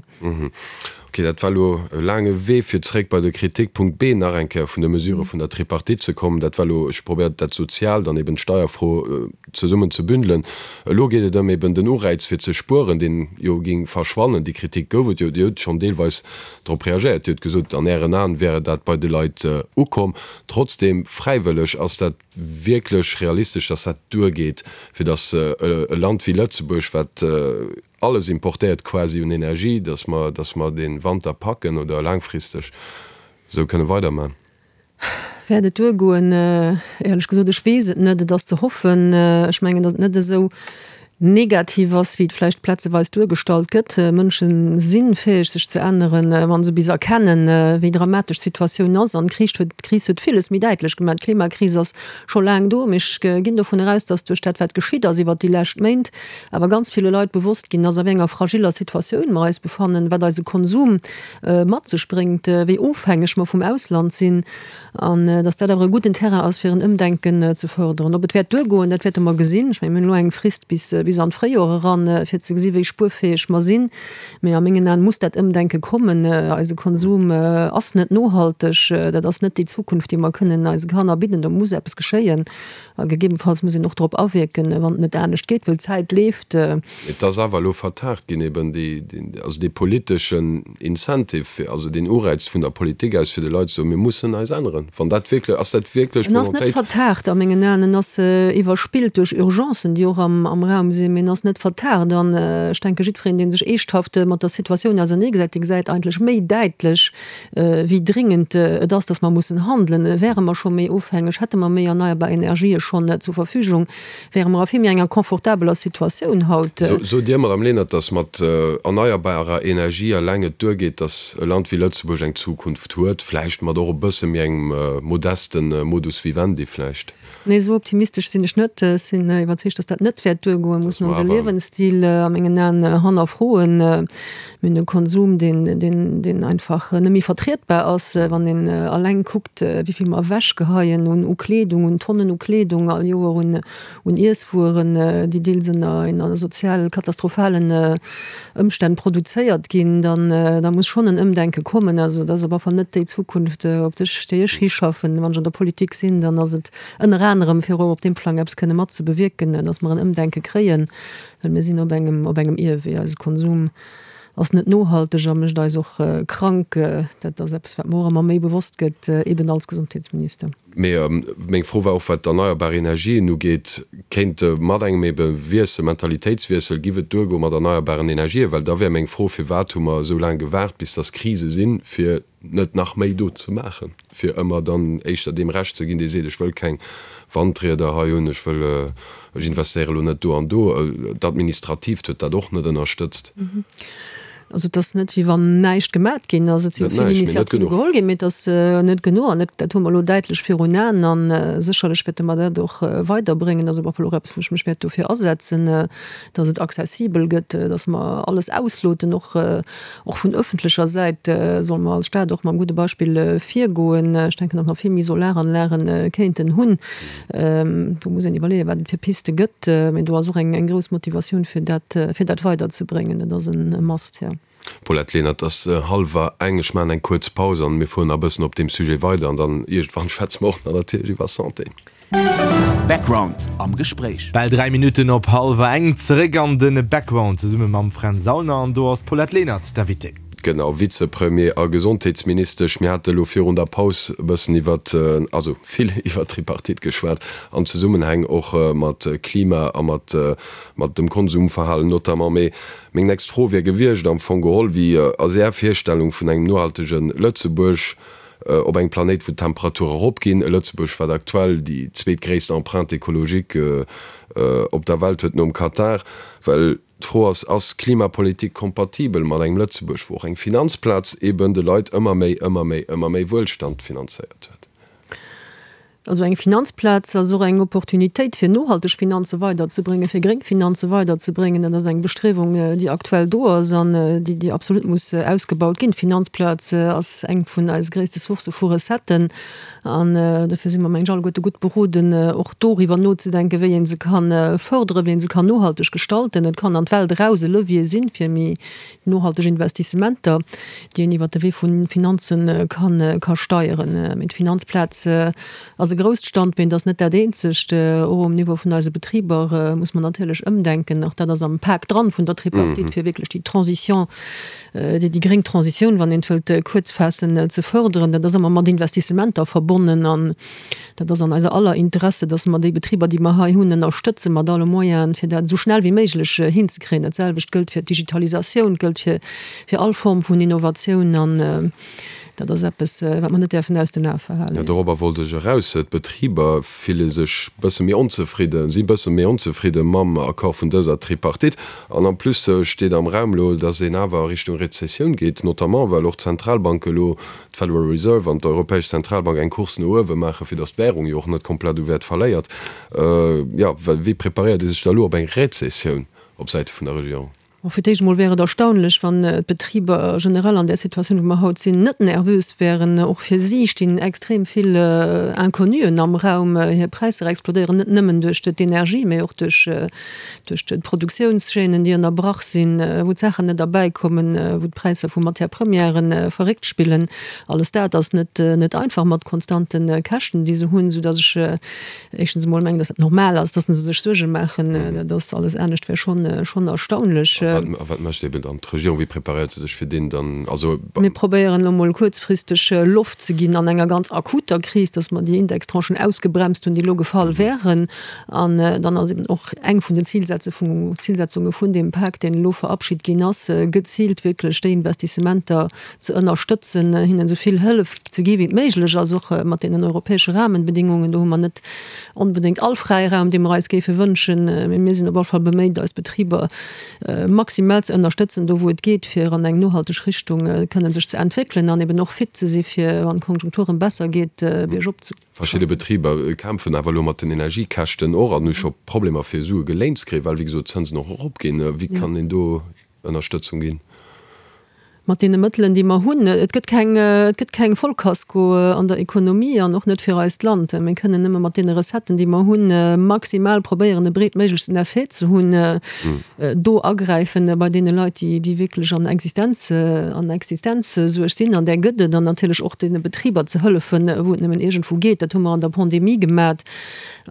S3: Ok, dat war elo e laange Wee, fir zréck bei de Kritikpunkt B nach eng Kéier vun de Mesurë vun der Tripartite ze kommen. Dat war elo, ech probéiert dat Soziaalt an eben d'Steierfro zesummen ze bündelen. Elo geet et ëm eben den Ureiz fir ze spueren, deen jo géing verschwannen. Déi Kritik gouf et jo, Dir hutt schonn deelweis drop reagéiert, Dir hutt gesot, an Ären Aen wäre dat bei de Leit ukomm. Trotzdem, fräiwëlleg, ass dat wierklech realistesch, datt dat duergeet, fir datt e Land wéi Lëtzebuerg, wat alles importéiert quasi un Energie, dass mer, dass mer dee Wanter packen oder laangfristeg esou kënne weiderman?
S4: Wäert et duergoen? Éierlech gesot, ech weess et net. Et ass ze hoffen. Ech mengen, datt et net esou. Negativ ass, wéi et vläicht plazeweis duergestallt gëtt. Mënsche si fäeg, sech ze änneren, wa se bis erkennen, wéi dramatesch d'Situatioun ass. An d'Kris huet, d'Kris huet villes méi däitlech gemaach. D'Klimakris ass scho laang do, mee ech ginn dovun eraus, datt duerch dat, wat geschitt ass iwwert déi lescht Méint, awer ganz ville Leit bewosst ginn ass, a wéi enger fragiller Situatioun mer eis befannen, wat eise Konsum mat sech bréngt, wéi ofhängeg mer vum Ausland sinn. An datt dat awer e gudden Terrain ass, fir en Ëmdenken ze fërderen. Ob et wäert duergoen, dat wäerte mer gesinn. Ech mengen, mir hunn elo eng Frist bis, bis an d'Fréijoer eran, fir ze gesi wéi spuerfäeg mer sinn. Mee a mengen Aen muss dat Ëmdenke kommen. Eise Konsum ass net nohalteg. Dat ass net déi Zukunft, déi mer kënnen eise Kanner bidden. Do muss eppes geschéien. A gegebenfalls muss een och drop awierken, wann et net anescht geet, well d'Zäit leeft.
S3: Et ass awer elo vertagt ginn, eben déi, also dee politeschen Incentive, fir, also deen Ureiz vun der Politik aus, fir de Leit ze soen, mir mussen eis änneren. Wann dat wierklech, ass dat wierklech
S4: En ass net
S3: d'Volontéit?
S4: vertagt a mengen Aen. En ass iwwerspillt duerch Urgencen, déi och am Raum sinn, mee en ass net vertagt. An ech denke jiddwereen, dee sech eeschthaft mat der Situatioun auserneegesetzt, dee gesäit eigentlech méi däitlech, wéi dringend et ass, dass mer mussen handelen. Wäre mer scho méi ofhängeg, hätte mer méi erneierbar Energië schonn zur Verfügung, wäre mer a vill méi enger confortabeler Situatioun haut.
S3: Sot Dir, Madame Lenert, dass mat erneierbarer Energie eleng et duergeet, dass e Land wéi Lëtzebuerg eng Zukunft huet, vläicht mat och e bësse méi engem modeste Modus vivendi vläicht?
S4: Nee, esou optimistesch sinn ech net. Ech sinn iwwerzeegt, dass dat net wäert duergoen. Mir mussen onse Liewensstil a mengen Aen hannerfroen. Mir hunn e Konsum, deen, deen, deen einfach net méi vertrietbar ass. Wann een eleng kuckt, wéi vill mer ewechgeheien un u Kleedung, un Tonnen u Kleedung all Joer, un, un Iesswueren, déi deels ënner, ënner sozial katastrophalen Ëmstänn produzéiert ginn, dann, da muss schonn en Ëmdenke kommen. Also dat ass op alle Fall net déi Zukunft, op déi ech, déi ech hischaffen. Wann ech an der Politik sinn, dann ass et ënner anerem, fir och op deem Plang eppes kënne mat ze bewierken, dass mer en Ëmdenke kréien, well mir sinn op engem, op engem Ierwee. Eise Konsum ass net nohalteg a mécht eis och krank. Dat ass eppes, wat mer och ëmmer méi bewosst gëtt, eben als Gesondheetsminister.
S3: Mee meng Fro war och, wat d'erneierbar Energien ugeet, kéint mat engem ebe Wiessel, Mentalitéitswiessel, giff et duergoe mat erneierbaren Energien? Well da wär meng Fro, Firwat hu mer esou laang gewaart, bis dass Krise sinn, fir net nach méi do ze maachen, fir ëmmer dann éischter deem Recht ze ginn, dee seet, ech wëll keng Wandrieder hei hunn, ech wëll, ech investéiere lo net do an do. D'Administratiivt huet dat och net ënnerstëtzt.
S4: Also et ass net, wéi wann näischt gemat ginn ass. Et si jo vill Initiative geholl ginn, mee et ass net genuch. An dat hu mer elo däitlech virun Aen. A sécherlech wäerte mer dat och weiderbréngen. Dat ass op alle Fall och eppes, wou ech mech wäert dofir asetzen, dass et accessibel gëtt, dass mer alles ausloten, och Och vun öffentlecher Säit solle mer als Stad och mam gudde Beispill virgoen. Ech denken, datt mer vill méi Solaranlage kéinten hunn. Do muss een iwwerleeën, wat et fir Piste gëtt. Mee do ass och eng grouss Motivatioun, fir dat, fir dat weiderzebréngen. Dat ass e Must, jo.
S3: Paulette Lenert, Et ass hallwer eng. Ech maachen eng kuerz Paus an mir fueren nach e bëssen op deem Sujet weider an dann iergendwann schwätze mer och nach natierlech iwwer Santé.
S1: Background am Gespréich.
S2: Bal 3 Minutten op hallwer eng, zeréck an de Background zesumme mam Fränz Aulner an do ass d'Paulette Lenert d'Invitée.
S3: Genau, Vizepremier a Gesondheetsministesch. Mir hate elo virun der Paus e bëssen iwwert, also vill iwwert d'Tripartite geschwat, an Zesummenhäng och mat Klima a mat mat dem Konsumverhalen notamment. Mee meng nächst Fro wier gewiescht am Fong geholl, Wéi ass Är Virstellung vun engem nohaltege Lëtzebuerg? Op engem Planéit, wou d'Temperature eropginn, e Lëtzebuerg, wat aktuell déi zweetgréisst Empreinte écologique op der Welt huet, nom Katar. Well d'Fro ass, Ass Klimapolitik kompatibel mat engem Lëtzebuerg, wou och eng Finanzplaz eben de Leit ëmmer méi, ëmmer méi, ëmmer méi Wuelstand finanzéiert huet?
S4: Also eng Finanzplaz ass och eng Opportunitéit, fir nohalteg Finanze weiderzebréngen, fir gréng Finanze weiderzebréngen. Dat ass eng Bestriewung, déi aktuell do ass an déi, déi absolut muss ausgebaut ginn. D'Finanzplaz ass eng vun eise gréisste Sourcë vu Recetten an dofir si mer, meng ech, alleguerte gutt beroden, och doriwwer nozedenken, wéi ee se ka fërderen, wéi ee se kann nohalteg gestalten. Et kann an d'Welt eraus e Levier sinn, fir méi nohalteg Investissementer, déi een iwwert de Wee vu Finanze ka steieren. Mee d'Finanzplaz ass e grousst Standbeen, et ass net dat eenzegt. Och um Niveau vun eise Betriber muss mer natierlech ëmdenken. Och dat ass am Pak dran vun der Tripartite, fir wierklech déi Transition, déi gréng Transitioun, wann een et wëllt kuerz faassen, ze fërderen. Dat ass ëmmer mat Investissementer verbonnen an Dat ass an eiser aller Interesse, dass mer déi Betriber, déi mer hei hunn, ënnerstëtze mat alle Moyenen, fir dat esou schnell wéi méiglech hinzekréien. Dat selwecht gëllt fir d'Digitalisatioun, gëllt fir, fir all Form vun Innovatioun. An. Dat ass eppes, wat mer net däerfen aus den Ae verhalen.
S3: Jo, dorobber wollt ech eraus. D'Betriber fille sech bësse méi onzefridden, si bësse méi onzefridde mam Accord vun dëser Tripartite. An en plus steet am Raum elo, datt een awer a Richtung Rezessioun geet, notamment well och d'Zentralbanke elo, d'Federal Reserve an d'Europäesch Zentralbank, eng Course no uewe maachen, fir datt d'Wärung jo och net komplett u Wäert verléiert. Jo, wéi preparéiert ee sech da elo op eng Rezessioun op Säite vun der Regierung?
S4: Bon, fir d'éischt emol wär et erstaunlech, wann d'Betriber generell an där Situatioun, wou mer haut sinn, net nervös wären. Och fir si stinn extrem vill Inconnuen am Raum. Hir Präisser explodéieren net nëmmen duerch d'Energie, mee och duerch d'Produktiounschaînen, déi ënnerbrach sinn, wou d'Saachen net erbäikommen, wou d'Präisser vu Matière-premièren verréckt spillen. Alles dat ass net einfach mat konstante Käschten, déi se hunn, soudass ech Éischtens emol mengen, datt dat normal ass, datt se sech Suerge maachen. Dat ass alles anescht wär schonn, schonn erstaunlech.
S3: A wat, a wat mécht eben dann d'Regierung? Wéi preparéiert se sech fir deen dann, also.
S4: Mir probéieren elo emol kuerzfristeg Loft ze ginn an enger ganz akuter Kris, datt mer déi Indextranchen ausgebremst hunn, déi elo gefall wären. An dann ass eben och eng vun den Zilsetze vun, Zilsetzunge vun deem Pak, deen elo verabschit ginn ass, geziilt wierklech déi Investissementer, ze ënnerstëtzen, hinnen esou vill Hëllef ze gi wéi et méiglech ass, och mat deenen europäesche Rahmenbedingungen. Do hu mer net onbedéngt all Fräiraum, dee mer eis géife wënschen, mee mir sinn op alle Fall beméit, eis Betriber maximal ze ënnerstëtzen, do wou et geet, fir an eng nohalteg Richtung kënnen sech ze entwéckelen an eben och fit ze si fir, wann d'Konjunktur erëm besser geet, biergop ze.
S3: Verschidde Betriber kämpfen awer elo mat den Energiekäschten och an hu scho Problemer fir Sue geléint ze kréien, well wéi gesot d'Zënsen och eropginn. Wéi kann een do Ënnerstëtzung ginn?
S4: Mat deene Mëttelen, déi mer hunn. Et gëtt keng, et gëtt keng Vollkasko an der Ekonomie an och net fir eist Land. Mir kënnen nëmme mat deene Recetten, déi mer hunn, maximal probéieren, e breetméiglechsten Effet ze hunn, do agräifen bei deene Leit, déi, déi wierklech an Existenz, an Existenzsuerg sinn, an där gëtt et, an natierlech och deene Betriber ze hëllefen, wou et nëmmen iergendwou geet. Dat hu mer an der Pandemie gemat.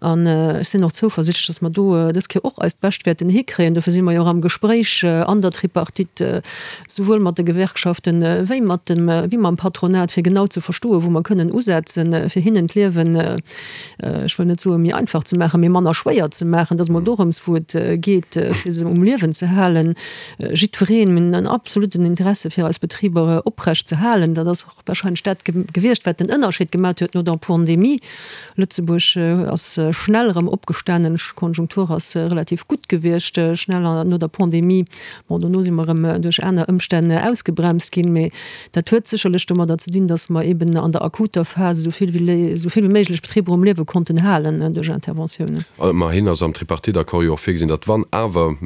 S4: An ech sinn och zouversichtlech, dass mer do dës Kéier och eist Bescht wäerten hikréien. Dofir si mer jo och am Gespréich an der Tripartite, souwuel mat de Gewerkschaften wéi mat dem, wéi mam Patronat, fir genau ze verstoen, wou mer kënnen usetzen, fir hinnen d'Liewen, ech wëll net soen, méi einfach ze maachen, mee manner schwéier ze maachen. Et ass emol dorëms, wou et geet, fir se um Liewen ze halen. Jiddwereen, mir hunn en absoluten Interesse, fir eis Betriber oprecht ze halen. Dat ass och. Wahrscheinlech dat gewiescht, wat den Ënnerscheed gemat huet no der Pandemie. Lëtzebuerg ass schnell erëm opgestanen, d'Konjunktur ass relativ gutt gewiescht schnell no der Pandemie. Bon, dono si mer erëm duerch aner Ëmstänn ausgebremst ginn, mee dat huet sécherlech domadder ze dinn, datt mer eeben an der akuter Phas esou vill wéi esou vill wéi méiglech Betriber um Liewe konnten halen duerch Interventiounen.
S3: Ëmmerhin ass am Tripartite-Accord jo och virgesinn, datt wann awer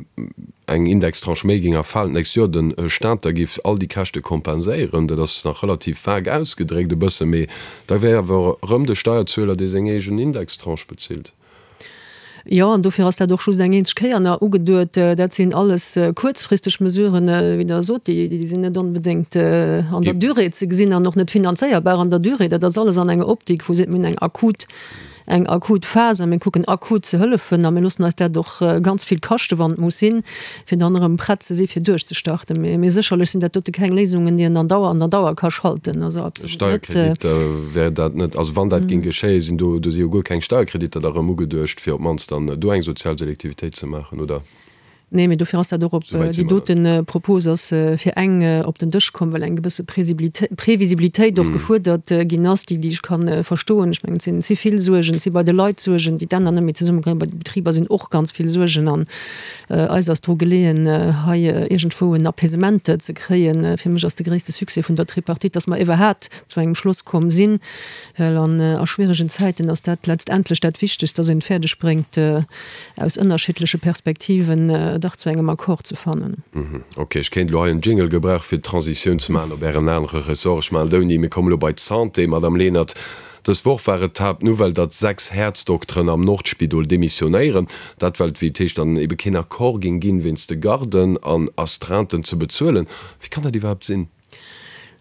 S3: eng Indextranche méi géing erfalen d'nächst Joer, de Staat da géif all déi Käschte kompenséieren. Dat ass nach relativ vag ausgedréckt e bësse, mee da wär awer erëm de Steierzueler, dee seng eegen Indextranche bezilt.
S4: Jo, an dofir ass dat och just eng eenzeg Kéier nach ugeduet. Dat sinn alles kuerzfristeg Mesuren, wéi Der sot, déi sinn net onbedéngt an der Durée ze gesinn an och net finanzéierbar an der Durée. Dat ass alles an enger Optik, wou seet, mir hunn eng akut eng akut Phas a mir kucken akut ze hëllefen a mir loossen eis dat och ganz vill kaschte wann et muss sinn, fir dann erëm prett ze si fir duerchzestarten. Mee mee sécherlech sinn dat dote keng Léisungen, déi een an Dauer an der Dauer ka schalten. Also
S3: absolut net. Steierkreditter wär dat net, also wann dat géing geschéien, sinn do, do si jo guer keng Steierkreditter da rëm ugeduecht, fir op d'mannst dann do eng sozial Selektivitéit ze maachen, oder?
S4: Nee, mee dofir ass dat och op déi dote Propos ass fir eng op den Dësch komm, well eng gewësse Previsibilitéit och gefuerdert ginn ass, déi déi ech ka verstoen. Ech mengen, et sinn ze vill Suergen, et si bei de Leit Suergen, déi d'Enner net méi zesummekréien, bei de Betriber sinn och ganz vill Suergen an eis ass dru geleeën, hei iergendwou en Apaisement ze kréien. Fir mech ass de gréisste Succès vun der Tripartite, datt mer iwwerhat zu engem Schloss komm sinn, well an a schwieregen Zäiten ass dat letztendlech dat Wichtegst, datt een et fäerdeg bréngt, aus ënnerschiddleche Perspektiven dach zu engem Accord ze fannen.
S3: Ok, ech kéint elo hei en Jingle gebrauchen, fir d'Transitioun ze maachen op Ären anere Ressort. Ech maachen et ouni. Mir kommen elo bei d'Santé, Madame Lenert. Dës Woch war et d'Haaptnouvelle, datt 6 Häerzdokteren am Nordspidol demissionéieren. Dat well et, wéi et heescht, dann ebe keen Accord géing ginn, wéinst de Garden an Astreinten ze bezuelen. Wéi kann dat iwwerhaapt sinn?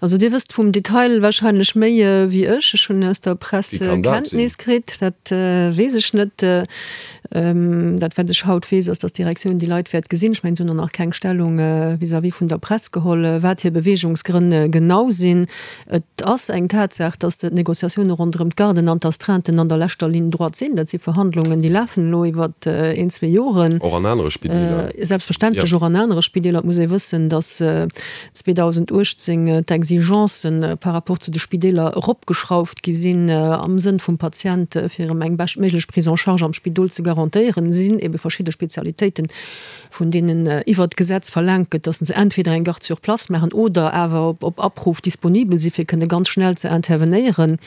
S4: Also Dir wësst vum Detail wahrscheinlech méi wéi ech. Ech hunn aus der Press Kenntnis kritt. Dat weess ech net. Dat wat ech haut weess, ass, datt d'Direktioun déi Leit wäert gesinn. Ech mengen, se hunn och nach keng Stellung vis-à-vis vun der Press geholl, wat hir Beweegungsgrënn genau sinn. Et ass eng Tatsaach, datt d'Negociatioune ronderëm d'Garden an d'Astreinten an der leschter Ligne droite sinn. Dat si Verhandlungen, déi lafen elo iwwer een, zwee Joren.
S3: Och an anere Spideeler?
S4: Selbstverständlech och an anere Spideeler. Et muss ee wëssen, datt 2018 d'Exi. Exigencen par rapport zu de Spideeler eropgeschrauft gi sinn, am Sënn vum Patient, fir em eng beschtméiglech Prise en charge am Spidol ze garantéieren, sinn ebe verschidde Spezialitéiten, vun deenen iwwert d'Gesetz verlaangt gëtt, dass se entweder eng Garde sur place maachen oder awer op Abruf disponibel si fir kënne ganz schnell ze intervenéieren.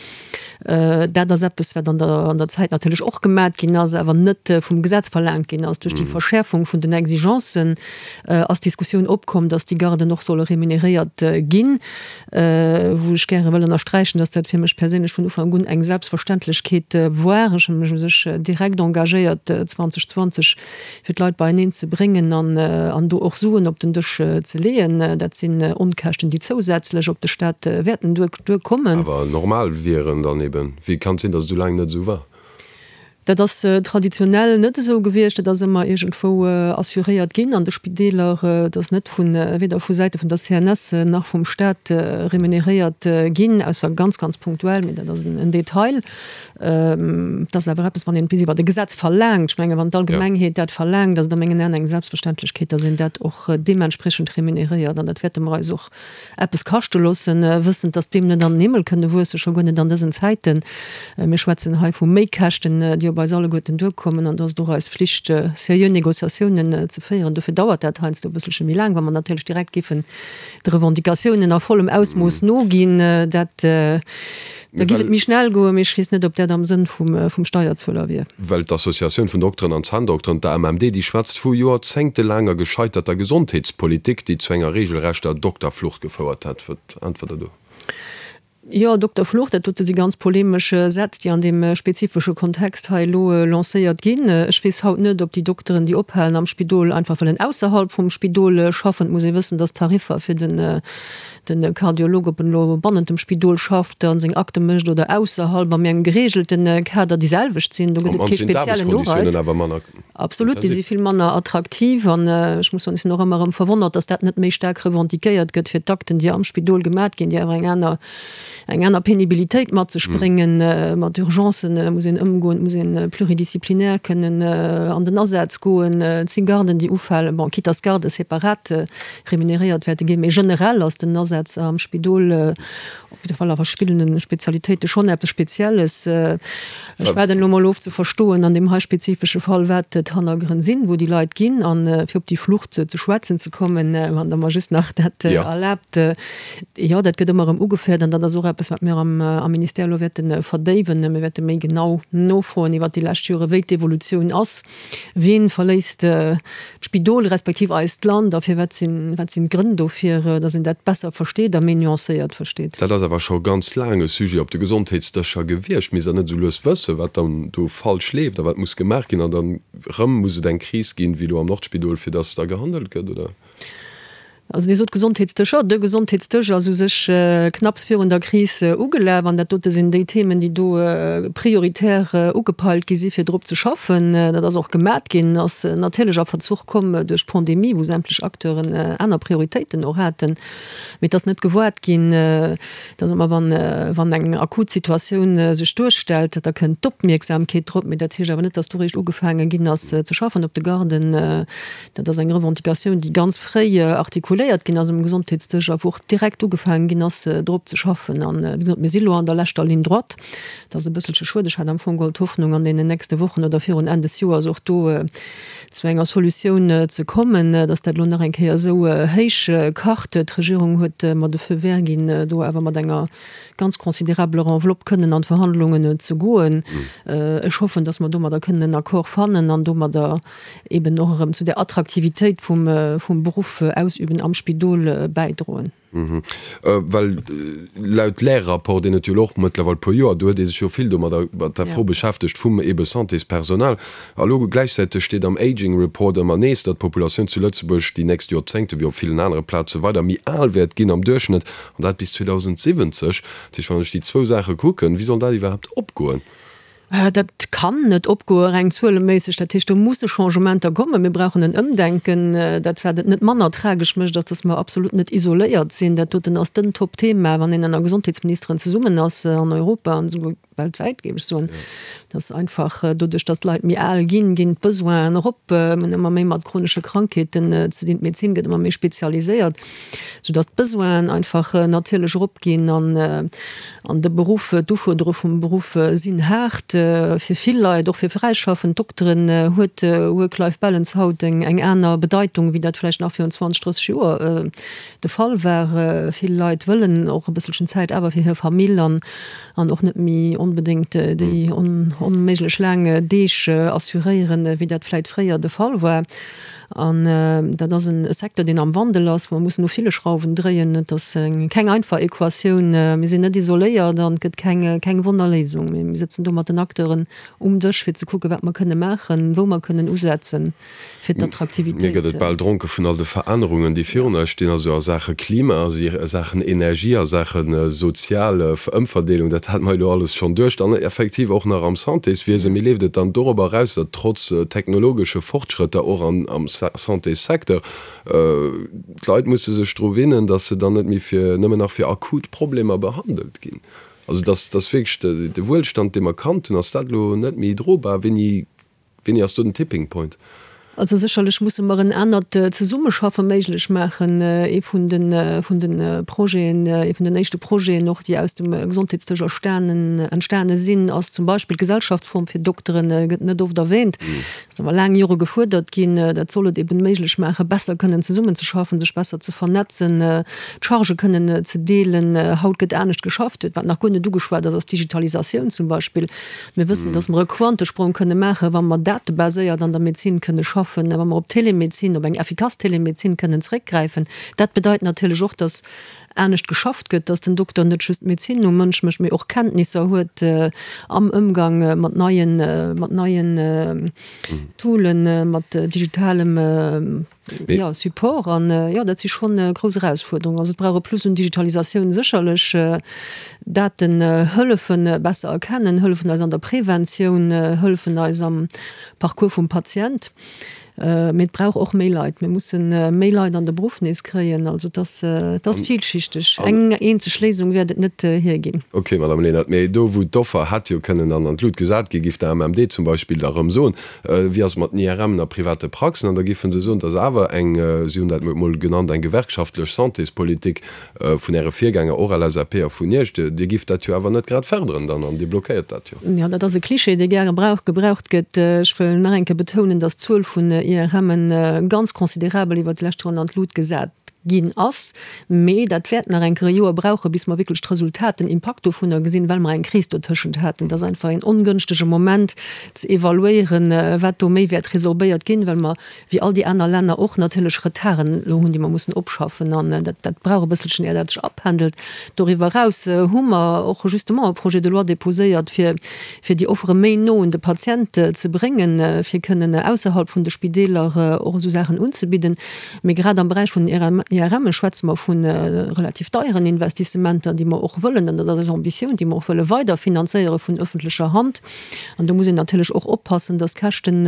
S4: Dat ass eppes, wat an der an der Zäit natierlech och gemat ginn ass, awer net vum Gesetz verlaangt ginn ass. Duerch déi Verschäerfung vun den Exigencen ass d'Diskussioun opkomm, dass déi Garden och solle remuneréiert ginn, wou ech gäre wëll ënnersträichen, dass dat fir mech perséinlech vun Ufank un eng Selbstverständlechkeet war. Ech hu mech u sech direkt engagéiert 2020, fir d'Leit beieneen ze bréngen an do och Suen op den Dësch ze leeën. Dat sinn Onkäschten, déi zousätzlech op de Staat wäerten duerkommen.
S3: Awer normal wieren dann eben. Wéi kann et sinn, datt et esou laang net esou war?
S4: Dat ass traditionell net esou gewiescht. Dat ass ëmmer iergendwou assuréiert ginn an de Spideeler. Et ass net vu weder vu Säite vun der CNS nach vum Staat remuneréiert ginn, ausser ganz, ganz punktuell, mee dat ass en Detail. Et ass awer eppes, wann een et bis iwwert e Gesetz verlaangt, ech mengen, wann d'Allgemengheet dat verlaangt, ass et a mengen Aen eng Selbstverständlechkeet, dass een dat och deementspriechend remuneréiert. An dat wäerte mer eis och eppes kaschte loossen, wëssend, dass d'Beem net an den Himmel kënne wuessen, scho guer net an dësen Zäiten. Mir schwätzen hei vu Méikäschten, déi op eis alleguerten duerkommen. An do ass et och eis Flicht, seriö Négociatiounen ze féieren. Dofir dauert dat heiansdo e bësselche méi laang, wa mer natierlech direkt géifen de Revendicatiounen a vollem Ausmooss noginn. Dat Da giff et méi schnell goen, mee ech weess net, ob dat am Sënn vum Steierzueler wier.
S3: Well d'Associatioun vun Dokteren an Zänndokteren, d'AMMD, déi schwätzt vu joerzéngtelaanger gescheiterter Gesondheetspolitik, déi zu enger regelrechter Dokterflucht gefouert hätt. Wat äntwert Der do?
S4: Jo, Dokterflucht, dat dote si ganz polemesch Sätz, déi an deem spezifesche Kontext hei elo lancéiert ginn. Ech weess haut net, ob déi Dokteren, déi ophalen am Spidol, einfach wëllen ausserhalb vum Spidol schaffen. Et muss ee wëssen, dass d'Tariffer fir den De Kardiolog, ob en elo bannent dem Spidol schafft a seng Akte mécht oder ausserhalb a méi engem gereegelte Kader, déi selwecht sinn. Do gëtt et kee speziellen Ureiz. Absolut, déi si vill manner attraktiv. An ech muss soen, ech sinn och ëmmer erëm verwonnert, datt dat net méi staark revendiquéiert gëtt fir d'Akten, déi am Spidol gemat ginn, déi awer eng aner, eng aner Penibilitéit mat sech bréngen. Mat Urgencen muss een ëmgoen, et muss ee pluridisziplinaire kënnen an den Asaz goen. Et si Garden, déi ufalen, bon, quitte dass d'Garde separat remuneréiert wäerte ginn. Mee generell ass den Asaz am Spidol, op jidde Fall a verschiddene Spezialitéite schonn eppes Spezielles. Ech waarden elo mol of ze verstoen an deem hei spezifesche Fall, wat d'Hannergrënn sinn, wou déi Leit ginn. A fir op déi Flucht ze schwätzen ze kommen, wann Der mer just nach dat erlaabt, jo, dat gëtt ëmmer erëm ugeféiert an dat ass och eppes, wat mir am Ministère elo wäerte verdéiwen. Mir wäerte méi genau nofroen iwwert déi lescht Jore wéi d'Evolutioun ass. Wien verléisst d'Spidol respektiv eist Land a firwat sinn, wat sinn d'Grënn dofir, datt een dat besser versteet a méi nuancéiert versteet?
S3: Dat ass awer scho ganz laang e Sujet op de Gesondheetsdëscher gewiescht. Misst Der net esou lues wëssen, wat dann do falsch leeft a wat muss gemaach ginn? An dann erëm muss et eng Kris ginn, wéi elo am Nordspidol, fir datt da gehandelt gëtt, oder?
S4: Also Dir sot Gesondheetsdëscher. De Gesondheetsdësch ass u sech knapps virun der Kris ugelaf an dat dote sinn déi Themen, déi do prioritär ugepeilt gi si fir drop ze schaffen. Dat ass och gemat ginn, ass natierlech a Verzuch komm duerch d'Pandemie, wou sämtlech Acteuren aner Prioritéiten och haten. Mee et ass net gewaart ginn, dass ëmmer wann, wann eng akut Situatioun sech duerstellt, da kënnt d'Opmierksamkeet drop. Mee dat heescht awer net, dass do réischt ugefaange ginn ass ze schaffen op de Garden. Dat ass eng Revendicatioun, déi ganz fréi artikuléiert ginn ass um Gesondheetsdësch a wou och direkt ugefaangen ginn ass, drop ze schaffen. An, wéi gesot, mir si lo an der leschter Ligne droite. Dat ass e bësselche schued. Ech hat am Fong geholl d'Hoffnung, an deenen nächste Wochen oder virun Enn des Joers och do zu enger Solutioun ze kommen, dass dat elo nach eng Kéier esou héich kacht. D'Regierung huet mer de Feu vert ginn, do awer mat enger ganz considérabeler Enveloppe kënnen an d'Verhandlungen ze goen. Ech hoffen, dass mer domadder kënnen en Accord fannen an domadder eben och erëm zu der Attraktivitéit vum, vum Beruff ausüben am Spidol bäidroen.
S3: Well laut Lärrapport, deen et jo elo och mëttlerweil e puer Joer, do huet ee sech jo vill domadder, mat der Fro beschäftegt vum ebe Santéspersonal. A lo gläichzäiteg steet am Aging Report ëmmer nees, datt d'Populatioun zu Lëtzebuerg déi nächst Joerzéngte wéi op villen anere Plaze weider méi al wäert ginn am Duerchschnëtt, an dat bis 2070. Dat heescht, wann ech déi zwou Saache kucken, wéi soll dat iwwerhaapt opgoen?
S4: Dat kann net opgoe reng zueleméisseg. Dat heescht, do musse Changementer kommen. Mir brauchen en Ëmdenken. Dat, wat et net manner tragesch mécht, ass, dass mer absolut net isoléiert sinn. Dat doten ass den Topthema, wann een ënner Gesondheetsministeren zesummen ass an Europa an esouguer. Weltwäit, géif ech soen. Dass einfach doduerch, dass d'Leit méi al ginn, ginn d'Besoinen erop. Mir hunn ëmmer méi mat chronesche Krankheeten ze dinn. D'Medezin gëtt ëmmer méi spezialiséiert, soudass d'Besoinen einfach natierlech eropginn. An, an de Beruff, d'Ufuerderunge vum Beruff sinn haart fir vill Leit, och fir fräischaffend Dokteren huet Work-Life-Balance haut eng, eng aner Bedeitung, wéi dat vläicht nach virun 20, 30 Joer de Fall war. Vill Leit wëllen och e bësselchen Zäit awer fir hir Famill an an och net méi onbedéngt déi onméiglech laang Deeg assuréieren, wéi dat vläit fréier de Fall war. An dat ass e Secteur, deen am Wandel ass, wou mer mussen u ville Schrauwen dréien. Et ass keng einfach Equatioun. Mir sinn net isoléiert an et gëtt keng Wonnerléisung. Mee mir sëtzen do mat den Acteuren um Dësch, fir ze kucken, wat mer kënne maachen, wou mer kënnen usetzen. fir
S3: d'Attraktivitéit. Mir gëtt et bal dronke vun all de Verännerungen, déi virun eis stinn, also a Saache Klima, a Saachen Energie, a Saache sozial Ëmverdeelung, dat hate mer elo alles schonn duerch, dann effektiv och nach am Santéswiesen. Mee leeft et dann dorobber eraus, datt trotz technologesche Fortschrëtter och am Santéssecteur d'Leit musse sech dru winnen, datt se dann net méi fir nëmmen nach fir akut Problemer behandelt ginn? Also datt wierklech de Wuelstand, dee mer kannt hunn, ass dat elo net méi drobar? Wéini Wéini ass do den Tipping Point?
S4: Also sécherlech musse mer en anert Zesummeschaffe méiglech maachen. Ee vun de vun de Projeten, ee vun den éischte Projeten och, déi aus dem Gesondheetsdësch erstanen, entstane sinn, ass zum Beispill d'Gesellschaftsform fir Dokteren, gëtt net oft erwähnt, ass awer laang Jore gefuerdert ginn. Dat soll et eben méiglech maachen, besser kënnen zesummenzeschaffen, sech besser ze vernetzen, d'Chargë kënnen ze deelen. Haut gëtt anescht geschafft. Wat nach guer net ugeschwat ass, ass d'Digitalisatioun zum Beispill. Mir wëssen, dass mer e Quantesprong kënne maachen, wa mer datebaséiert an der Medezin kënne schaffen, wa mer op Telemedezin, op eng effikass Telemedezin kënnen zréckgräifen. Dat bedeit natierlech och, dass anescht geschafft gëtt, dass den Dokter net just d'Medezin um Mënsch mécht, mee och Kenntnisser huet am Ëmgang mat neien, mat neien Toolen, mat digitalem Jo, Support an jo, dat si schonn grouss Erausfuerderungen. Also et brauch e Plus un Digitalisatioun sécherlech. Daten hëllefen besser erkennen, hëllefen eis an der Preventioun, hëllefen eis am Parcours vum Patient. Mee et brauch och méi Leit. Mir musse méi Leit an de Beruff nees kréien. Also et ass, et ass villschichteg. Eng eenzeg Léisung wäert et net hierginn.
S3: Ok, Madame Lenert, mee do wou d'Offer hätt jo kënnen an an d'Lut gesat ginn, giff der AMMD zum Beispill da rëm soen, Wéi ass et mat den IRMen a private Praxen? An da géife se soen, et ass awer eng, si hunn dat emol genannt, eng gewerkschaftlech Santéspolitik vun Äre Virgänger, och LSAP, a vun Iech. Dir gifft dat jo awer net grad fërderen dann an Dir blockéiert dat jo.
S4: Jo, dat ass e Klischee, dee gäre gebraucht gëtt. Ech wëll nach eng Kéier betounen, datt d'Zuel vun IRMen ganz considerabel iwwert déi lescht Joren an d'Lut gesat ginn ass. Mee dat wäert nach eng Kéier e Joer brauchen, bis mer wierklech d'Resultat, den Impakt dovunner gesinn, well mer eng Kris dotëschent haten. Et ass einfach een ongënschtege Moment ze evaluéieren, wat do méi wäert resorbéiert ginn, well mer, wéi all déi aner Länner och, natierlech Retarden elo hunn, déi mer mussen opschaffen. An dat, dat brauch e bësselchen, ier dat sech apendelt. Doriwwer eraus hu mer och justement e Projet de loi déposéiert, fir, fir déi Offere méi no un de Patient ze bréngen, fir kënnen ausserhalb vun de Spideeler och esou Saachen unzebidden. Mee grad am Beräich vun den IRMe schwätze mer vu relativ deieren Investissementer, déi mer och wëllen, an dat ass eis Ambitioun, déi mer och wëlle weider finanzéiere vun öffentlecher Hand. An do muss een natierlech och oppassen, dass d'Käschten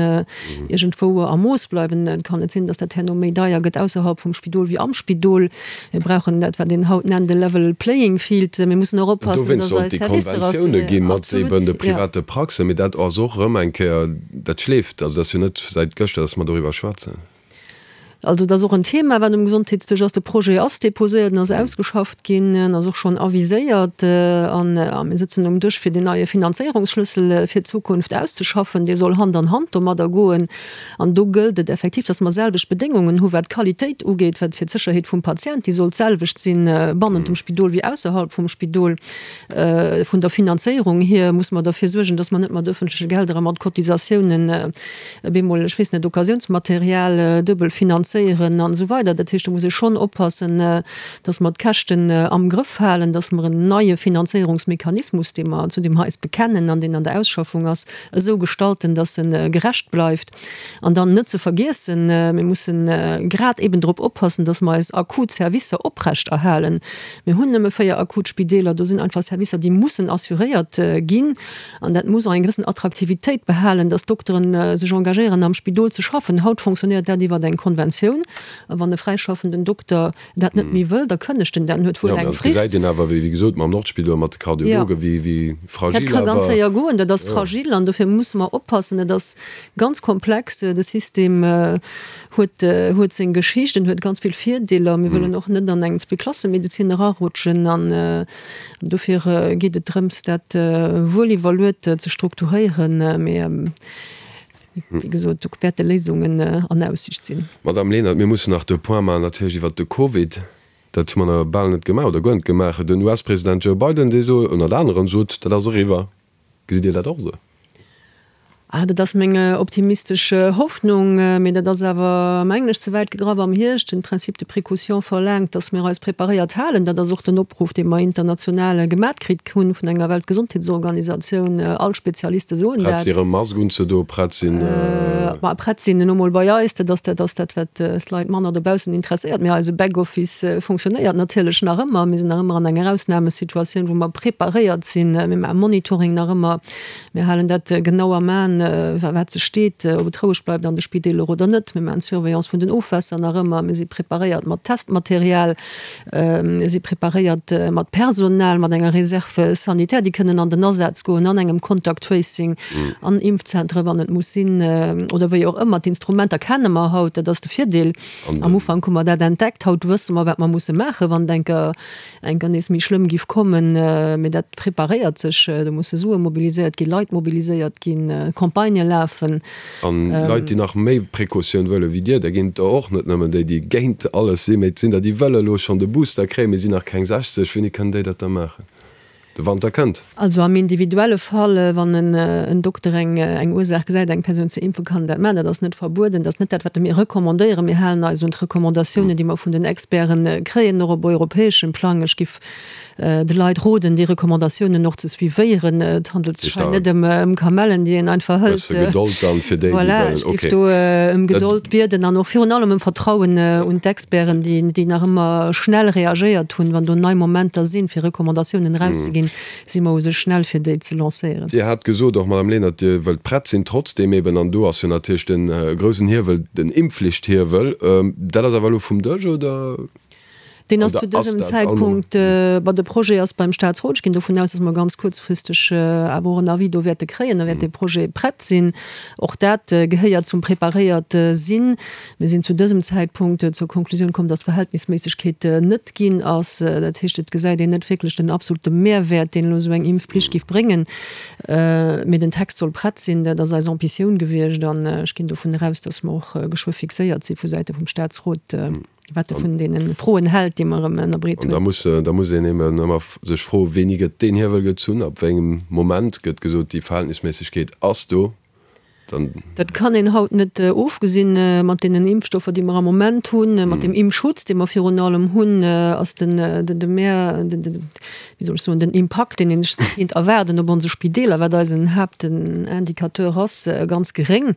S4: iergendwou a Mooss bleiwen. Et kann net sinn, dass dat herno méi deier gëtt ausserhalb vum Spidol wéi am Spidol. Mir brauchen dat, wat een haut nennt e level playing field. Mir mussen och oppassen,
S3: dass eis Servicer assuréiert. Dowéinst sollt déi Konventioune gi mat eben de private Praxen. Mee dat ass och erëm eng Kéier, dat schleeft. Also dat ass jo net säit gëschter, dass mer doriwwer schwätzen.
S4: Also et ass och en Thema, wat um Gesondheetsdësch ass. De Projet ass déposéiert, en ass ausgeschafft ginn, en ass och schonn aviséiert an mir sëtzen um Dësch, fir deen neie Finanzéierungsschlëssel fir d'Zukunft auszeschaffen. Dee soll Hand an Hand domadder goen. An do gëllt et effektiv, dass mer selwecht Bedéngungen hu wat d'Qualitéit ugeet, wat fir d'Sécherheet vum Patient, déi soll d'selwecht sinn bannent dem Spidol wéi ausserhalb vum Spidol. Vun der Finanzéierung hier musse mer derfir suergen, dass mer net mat öffentleche Gelder a mat Cotisatiounen bemol, ech weess net, Occasionsmaterial duebel finanzéieren an esou weider. Dat heescht, do muss ee schonn oppassen, dass mer d'Käschten am Grëff halen, dass mer en neie Finanzéierungsmechanismus, dee mer, zu deem mer eis bekennen an deen an der Ausschaffung ass, esou gestalten, dass e gerecht bleift. An dann net ze vergiessen, mir mussen grad eben drop oppassen, dass mer eis akut Servicer oprechterhalen. Mir hunn nëmme 4 akut Spideeler, do sinn einfach Servicer, déi mussen assuréiert ginn. An dat muss och eng gewëssen Attraktivitéit behalen, dass d'Dokteren sech engagéieren am Spidol ze schaffen. Haut fonctionnéiert dat iwwer eng Konventioun. Conventioun. A wann e fräischaffenden Dokter dat net méi wëll, da kënnegt en dat en huet wuel eng
S3: Frist. Jo, mä et gesäit een awer, wéi gesot, mam Nordspidol, mat de Kardiologen, wéi wéi fragil
S4: awer. Dat ka ganz séier goen, dat ass fragil an dofir musse mer oppassen. Et ass ganz komplex, de System huet huet seng Geschicht, en huet ganz vill Virdeeler. Mir wëllen och net an eng Zweeklassemedezin erarutschen an dofir geet et drëms, dat wuel iwwerluet ze strukturéieren. Mee Wéi gesot, do wäerte Léisungen an Aussicht sinn.
S3: Madamm Lenert, mir mussen nach de Point maachen natierlech iwwert de Covid. Dat hu mer nach bal net gemaach oder guer net gemaach. Den US-President Joe Biden, dee sot ënnert anerem sot, dat ass eriwwer. Gesitt Dir dat och esou?
S4: Ah, dat ass meng optimistesch Hoffnung, mee dat ass awer, mengen ech, ze wäit gegraff am Hierscht. Den Principe de précaution verlaangt, datt mir eis preparéiert halen. Dat ass och den Opruff, dee mer international gemat kritt hunn vun enger Weltgesondheetsorganisatioun. All Spezialiste soen
S3: dat. Prett sinn, erëm Mask unzedoen, prett sinn.
S4: Ma prett sinn elo mol bei eis, dat ass dat ass dat, wat d'Leit manner dobaussen interesséiert. Mee eise Backoffice fonctionnéiert natierlech nach ëmmer. Mir sinn nach ëmmer an enger Ausnamesituatioun, wou mer preparéiert sinn. Mir maache Monitoring nach ëmmer. Mir halen dat genau am Aen, wat sech steet, ob et roueg bleift an de Spideeler oder net. Mir maachen d'Surveillance vun den Ofwässer nach ëmmer. Mir si preparéiert mat Testmaterial. Mir si preparéiert mat Personal, mat enger Réserve sanitaire, déi kënnen an den Asaz goen an engem Contact Tracing, an Impfzentere wann et muss sinn oder wéi och ëmmer. D'Instrumenter kenne mer haut, dat ass de Virdeel. Am Ufank hu mer dat entdeckt, haut wësse mer, wat mer musse maachen, wann et eng Kéier eng Kéier nees méi schlëmm giff kommen. Mee dat preparéiert sech, do musse Sue mobiliséiert ginn, Leit mobiliséiert ginn, Campagnë lafen.
S3: An Leit, déi nach méi Precautioun wëlle wéi Dir, där ginn et der och, net nëmmen déi, déi géint alles sinn, mee et sinn der, déi wëlle elo schonn de Booster kréien, mee sinn nach keng 60. Wéini kënnen déi dat da maachen? De Wanter kënnt.
S4: Also am individuelle Fall, wann en Dokter eng Ursaach gesäit, eng Persoun ze impfen, kann en dat maachen. Dat ass net verbueden. Dat ass net dat, wat mir recommandéieren. Mir halen eis un d'Recommandatiounen, déi mer vun den Experten kréien, och op europäeschem Plang. Ech giff de Leit roden, déi Recommandatiounen och ze suivéieren. Et handelt sech hei net ëm Kamellen, déi een einfach hëlt.
S3: Bësse Gedold dann fir déi, déi
S4: wëllen. Voilà, ech géif do ëm Gedold bieden an och virun allem ëm Vertrauen un d'Experten, déi nach ëmmer schnell reagéiert hunn. Wann do nei Momenter sinn, fir Recommandatiounen erauszeginn, si mer u sech schnell, fir déi ze lancéieren.
S3: Dir hat gesot och, Madame Lenert, Dir wëllt prett sinn. Trotzdeem eben, an do ass jo natierlech de groussen Hiewel den Impfflichthiewel. Dat ass awer elo vum Dësch, oder?
S4: Deen ass zu dësem Zäitpunkt, bon, de Projet ass beim Statsrot. Ech ginn dovun aus, dass mer ganz kuerzfristeg awer och en Avis do wäerte kréien. Da wäert dee Projet prett sinn. Och dat gehéiert zum preparéiert sinn. Mir sinn zu dësem Zäitpunkt zur Konklusioun komm, dass d'Verhältnisméissegkeet net ginn ass. Dat heescht, et gesäit een net wierklech den absolute Mehrwäert, deen elo esou eng Impfpflicht géif bréngen. Mee den Text soll prett sinn. Dat ass eis Ambitioun gewiescht. An ech ginn dovun eraus, dass mer och geschwë fixéiert si vu Säite vum Statsrot. Wat e vun deene Froen hält, déi mer ëm ënnerbreet
S3: hunn. An da muss, da muss een eben ëmmer sech froen, Wéini gëtt deen Hiewel gezunn? Ab wéi engem Moment gëtt gesot, déi Verhältnisméissegkeet ass do?
S4: Dann. Dat kann een haut net ofgesinn. Mat deenen Impfstoffer, déi mer am Moment hunn, mat deem Impfschutz, dee mer virun allem hunn, ass den, den, de Mehr, den, den, wéi soll ech soen, den Impakt, deen een sech kéint erwaarden op onse Spideeler, wat eisen Haaptindicateur ass, ganz geréng.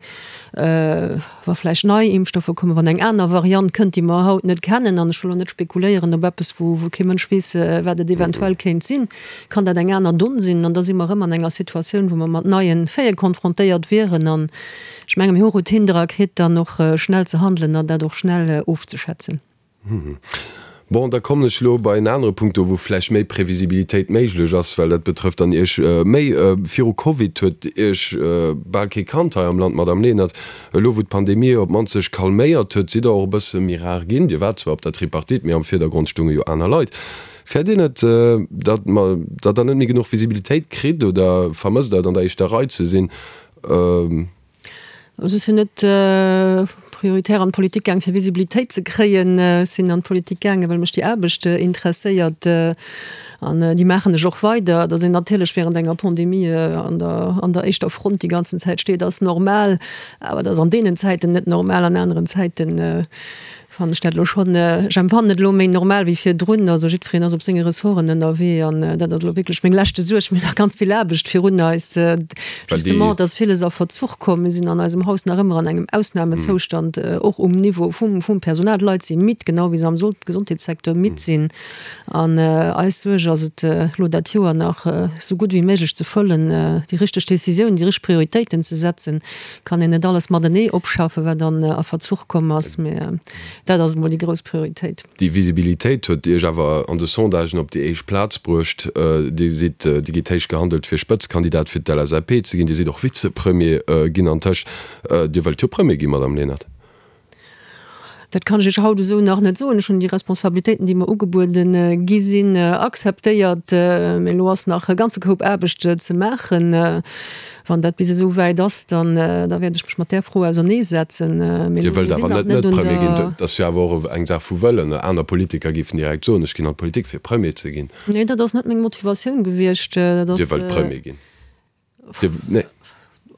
S4: Wa vläicht nei Impfstoffer kommen, wann eng aner Variant kënnt, déi mer haut net kennen, an ech wëll elo net spekuléieren op eppes, wou kee Mënsch weess, wat et eventuell kéint sinn, kann dat eng aner Donn sinn. An da si mer erëm an enger Situatioun, wou mer mat neie Faite konfrontéiert wieren. An ech menge mir hu Routine dra kritt, dann och schnell ze handelen an dat och schnell ofzeschätzen.
S3: Bon, da kommen ech elo bei en anere Punkt, do wou vläicht méi Previsibilitéit méiglech ass, well dat betrëfft dann Iech méi. Viru Covid huet Iech bal kee kannt hei am Land, Madamm Lenert. Elo wou d'Pandemie op d'mannst sech calméiert huet, sidd Der och e bësse méi rar ginn. Dir waart zwar op der Tripartite, mee am Virdergrond stounge jo aner Leit. Fäert Dir net, datt datt Der net méi genuch Visibilitéit kritt oder vermësst Der et an der éischter Rei ze sinn?
S4: Also ech sinn net prioritär an d'Politik gaang fir Visibilitéit ze kréien. Ech sinn an d'Politik gaangen, well mech déi Aarbecht interesséiert an déi maachen ech och weider. Datt een natierlech während enger Pandemie an der an der éischter Front déi ganzen Zäit steet, ass normal. Awer dat ass an deenen Zäiten net normal, an aneren Zäiten. Fannen ech dat elo schonn, ech empfannen et elo méi normal wéi virdrun. Also jiddwereen ass op senge Ressorten ënnerwee an dat ass elo wierklech meng leschte Suerg. Mir hunn nach ganz vill Aarbecht virun eis. Justement, et ass villes a Verzuch komm. Mir sinn an eisem Haus nach ëmmer an engem Ausnamezoustand, och um Niveau vum, vum Personal. D'Leit si midd, genau wéi se am Gesondheetssecteur midd sinn. An eis Suerg ass et, elo dat Joer nach esou gutt wéi méiglech ze fëllen, déi richteg Décisiounen, déi richteg Prioritéiten ze setzen. Kann een net alles matenee opschaffen, wat dann a Verzuch komm ass, mä dat ass emol déi grouss Prioritéit.
S3: Déi Visibilitéit huet Iech awer an de Sondagen op déi éischt Plaz bruecht. Dir sidd, Dir gitt héich gehandelt fir Spëtzkandidat fir d'LSAP ze ginn. Dir sidd och Vizepremier ginn antëscht. Dir wëllt jo Premier ginn, Madame Lenert?
S4: Dat kann ech Iech haut esou nach net soen. Ech hunn déi Responsabilitéiten, déi mer ugebuede gi sinn, akzeptéiert. Mee elo ass nach e ganze Koup Aarbecht ze maachen. Wann dat bis esou wäit ass, dann da wäert ech mech mat där Fro auserneesetzen.
S3: Mee Dir elo, wëllt mir sinn awer nach net net un Premier ginn. der. Dat ass jo awer och eng Saach vu Wëllen. Aner Politiker géifen direkt soen, ech ginn an d'Politik fir Premier ze ginn.
S4: Nee, dat ass net meng Motivatioun gewiescht. Dat
S3: ass. Dir wëllt Premier ginn. Dir,
S4: nee.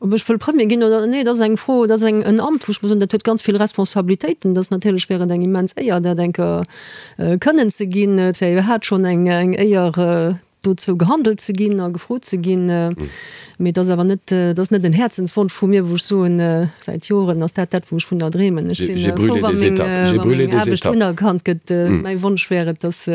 S4: Ob ech wëll Premier ginn oder nee, dat ass eng Fro, dat ass eng, en Amt, wou ech muss soen, dat huet ganz vill Responsabilitéiten. Dat ass natierlech wär et eng immens Éier, dat eng Kéier kënnen ze ginn. Et wär iwwerhaapt schonn eng, eng Éier, dozou gehandelt ze ginn a gefrot ze ginn. Mee et ass awer net, et ass net en Häerzenswonsch vu mir, wou ech soen, säit Joren ass dat dat, wou ech vun der dreemen. Ech si frou, wa meng, wa meng Aarbecht unerkannt gëtt. Mäi Wonsch wär et, dass,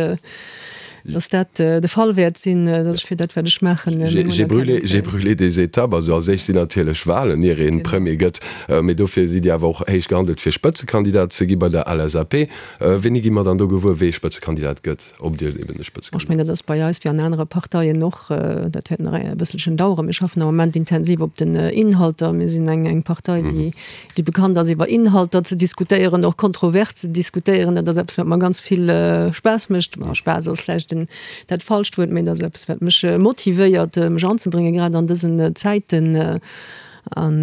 S4: dass dat de Fall wäert sinn, dass ech fir dat, wat ech maachen, meng
S3: J'ai brûlé, j'ai brûlé des étapes. Also als éischt sinn natierlech Wahlen, ier ee Premier gëtt. Mee dofir sidd Dir awer och héich gehandelt, fir Spëtzekandidat ze gi bei der LSAP. Wéini gi mer dann do gewuer, wee Spëtzekandidat gëtt? Ob Dir eben de
S4: Spëtzekandidat. Ech mengen, dat ass bei eis wéi an anere Parteien och. Dat wäert nach e bësselchen daueren. Mir schaffen am Moment intensiv op den Inhalter. Mir sinn eng, eng Partei, déi, déi bekannt ass, iwwer Inhalter ze diskutéieren, och kontrovers ze diskutéieren. Dat ass eppes, wat mer ganz vill Spaass mécht. Bon, Spaass ass vläicht den, dat falscht Wuert, mee et ass eppes, wat mech motivéiert, mech anzebréngen, grad an dësen Zäiten. An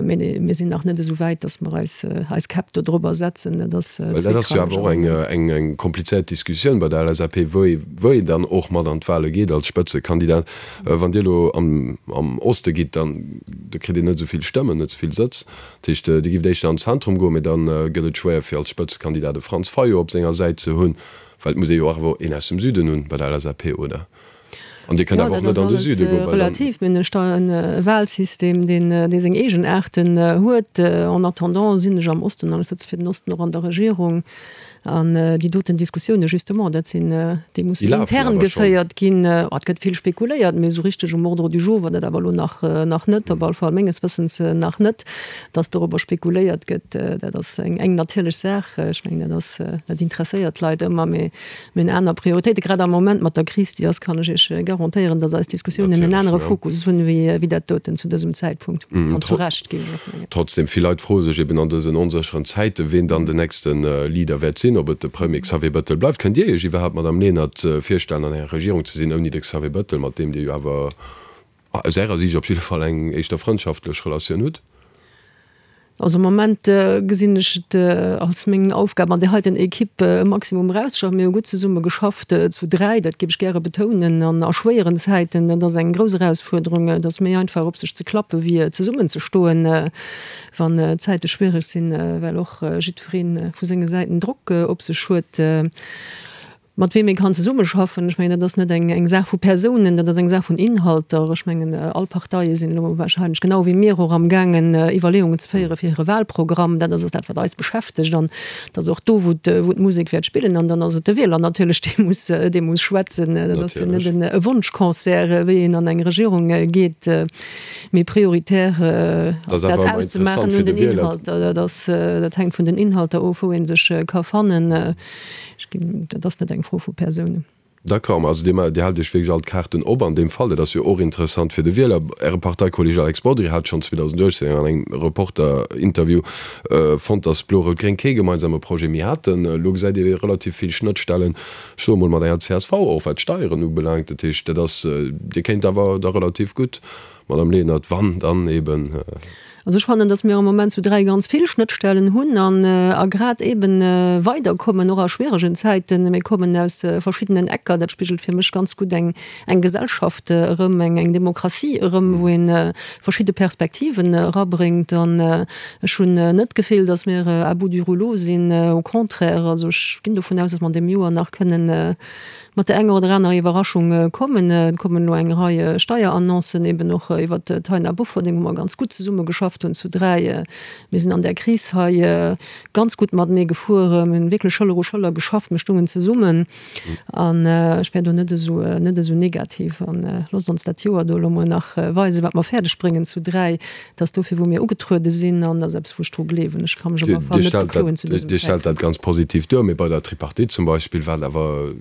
S4: mee mir sinn nach net esou wäit, datt mer eis eis Käpp do drobber setzen.
S3: Dat ass Well dat ass jo awer och eng eng eng komplizéiert Diskussioun bei der LSAP, wou ee wou een dann och mat an d'Wahle geet als Spëtzekandidat. Wann Dir elo am am Oste gitt, dann da kritt Dir net esou vill Stëmmen, net esou vill Sëtz. Dat heescht, Dir gift éischter an d'Zentrum goen, mee dann gëtt et schwéier fir als Spëtzekandidat e Franz Fayot op senger Säit ze hunn, well et muss ee jo awer een aus dem Süden hunn bei der LSAP, oder?
S4: An Dir kënnt awer och net an de Süde goen, well dann. Relativ. Mir hunn e Wahlsystem, deen, dee seng Eegenaarten huet. En attendant sinn ech am Osten an ech sëtze fir den Osten och an der Regierung. An déi doten Diskussioune justement, dat sinn, déi mussen intern geféiert ginn. Et gëtt vill spekuléiert, mee esou richteg um Ordre du jour war dat awer elo nach, nach net, op alle Fall menges Wëssens nach net, dass dorobber spekuléiert gëtt. Dat ass eng, eng natierlech Saach. Ech mengen, dat ass, dat interesséiert d'Leit ëmmer, mee Mir hunn aner Prioritéiten, grad am Moment mat der Kris, déi ass, kann ech Iech garantéieren, datt eis Diskussiounen en anere Fokus hunn, wéi dat doten zu dësem Zäitpunkt. An zu Recht, géif
S3: ech och mengen. Trotzdem, vill Leit froe sech eben an dësen onsécheren Zäiten, ween dann den nächste Leader wäert sinn, ob et de Premier Xavier Bettel bleift. Kënnt Dir Iech iwwerhaapt, Madamm Lenert, virstellen, an enger Regierung ze sinn ouni de Xavier Bettel, mat deem Dir jo awer aus Ärer Siicht op jidde Fall eng éischter frëndschaftlech Relatioun hutt?
S4: Also am Moment gesinn ech et als meng Aufgab an där heiten Equipe e Maximum erauszeschaffen. Mir hu gutt zesumme geschafft, zu 3, dat géif ech gäre betounen, an a schwéieren Zäiten. Dat ass eng grouss Erausfuerderung. Et ass méi einfach op sech ze klappe wéi zesummen ze stoen, wann d'Zäite schwiereg sinn, well och jiddweree vu senge Säiten Drock op sech huet. Mat weem ee kann zesummeschaffen, ech mengen, dat ass net eng eng Saach vu Persounen, dat ass eng Saach vun Inhalter. Ech mengen, all Parteie sinn elo wahrscheinlech genau wéi mir och amgaangen, Iwwerleeungen ze féiere fir hire Wahlprogramm. Dat ass dat, wat eis beschäftegt an dat ass och do, wou wou d'Musek wäert spillen. An dann ass et de Wieler natierlech, dee muss dee muss schwätzen. Dat ass jo net en e Wonschconcert, wéi een an eng Regierung geet, mee prioritär ass dat auszemaachen un den Inhalter. Dat ass dat hänkt vun den Inhalter of, wou ee sech ka fannen. Ech ginn, dat ass net eng Fro vu Persounen.
S3: D'accord, ma also Dir, Dir haalt Iech wierklech all d'Kaarten op an deem Fall. Dat ass jo och interessant fir de Wieler. Äre Parteikolleg Alex Bodry hat schonn 2018 an engem Reporter-Interview fonnt, datt Blo-Rout-Gréng kee gemeinsame Projet méi haten. Elo gesäit ee relativ vill Schnëttstellen, ech soe mol mat enger csv och, wat d'Steieren ubelaangt. Dat heescht, dat ass, Dir kéint awer da relativ gutt, Madame Lenert, wann dann eben.
S4: Also ech fannen, datt mir am Moment zu 3 ganz vill Schnëttstellen hunn an a grad eeben weiderkommen, och a schwieregen Zäiten. Mir kommen aus verschiddenen Ecker. Dat spigelt fir mech ganz gutt eng eng Gesellschaft erëm, eng eng Demokratie erëm, wou ee verschidde Perspektiven erabréngt. An ech hunn net d'Gefill, datt mir à bout du rouleau sinn, au contraire. Also ech ginn dovun aus, datt mer an deem Joer nach kënnen mat der enger oder anerer Iwwerraschung kommen. Et kommen elo eng Rei Steierannoncen, eben och iwwert d'Taina Bofferding, wou mer ganz gutt zesummegeschafft hunn zu 3. Mir sinn an där Kris hei ganz gutt matenee gefuer. Mir hunn wierklech Schëller u Schëller geschafft, mir stungen zesummen. An ech wär do net esou, net esou negativ. An loosst ons dat Joer do elo mol nach weisen, wat mer fäerdeg bréngen zu 3. Dat ass dofir, wou mir ugetruede sinn, an dat ass eppes, wou ech dru gleewen. Ech ka mech op alle Fall net bekloen zu dësem
S3: Dir stellt dat
S4: Zäitpunkt.
S3: ganz positiv duer, mee bei der Tripartite zum Beispill war et awer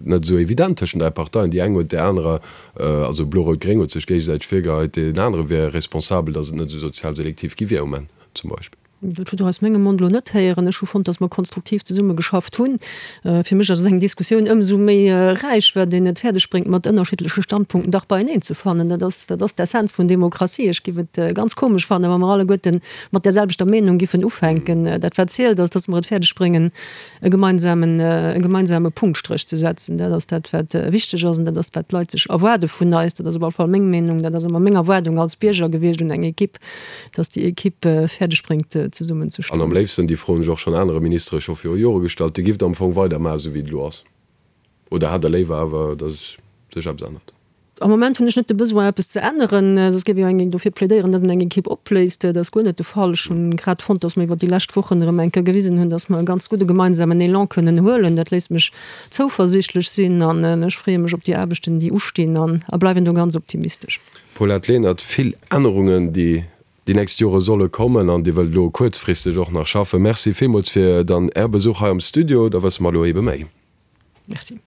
S3: net esou evident tëschent 3 Parteien. Déi eng huet där anerer, also Blo-Rout-Gréng huet sech géigesäiteg virgeheit, deen anere wier responsabel, datt et net esou sozial selektiv gi wier um Enn zum Beispill.
S4: Dat hutt Der aus mengem Mond elo net héieren. Ech hu fonnt, datt mer konstruktiv zesummegeschafft hunn. Fir mech ass eng Diskussioun ëmsou méi räich, wat een et fäerdeg bréngt, mat ënnerschiddleche Standpunkten dach beieneen ze fannen. Dat ass, dat ass d'Essenz vun Demokratie. Ech giff et ganz komesch fannen, wa mer alleguerte mat där selwechter Meenung giffen ufänken. Dat wat zielt ass, datt mer et fäerdeg bréngen, e gemeinsamen, e gemeinsame Punktstréch ze setzen. Dat ass dat, wat wichteg ass an dat ass, wat d'Leit sech erwaarde vun eis. Dat ass op alle Fall meng Meenung. Dat ass ëmmer meng Erwaardung als Bierger gewiescht un eng Equipe. dass déi Equipe fäerdeg bréngt zesummen ze
S3: stoen. An am léifsten, déi Fro hunn ech och schonn anere Ministere scho viru Jore gestallt, Dir gifft am Fong weidermaachen, esou wéi et elo ass, oder hätt Der léiwer awer, dass sech eppes ännert?
S4: Am Moment hunn ech net de Besoin, eppes ze änneren. Soss géif ech jo eng dofir plädéieren, dass een eng Equipe opléist. Dat ass guer net de Fall. Ech hunn grad fonnt, dass mer iwwer déi lescht Wochen erëm eng Kéier gewisen hunn, dass mer e ganz gudde gemeinsamen Elan kënnen huelen. Dat léisst mech zouversiichtlech sinn an ech freeë mech op déi Aarbechten, déi ustinn an a bleiwen do ganz optimistesch.
S3: Paulette Lenert, Vill Ännerungen, déi déi nächst Jore solle kommen an Dir wëllt elo kuerzfristeg och nach schaffen. Merci villmools fir dann Är Besuch hei am Studio. Da wësse mer elo ebe méi.
S4: Merci.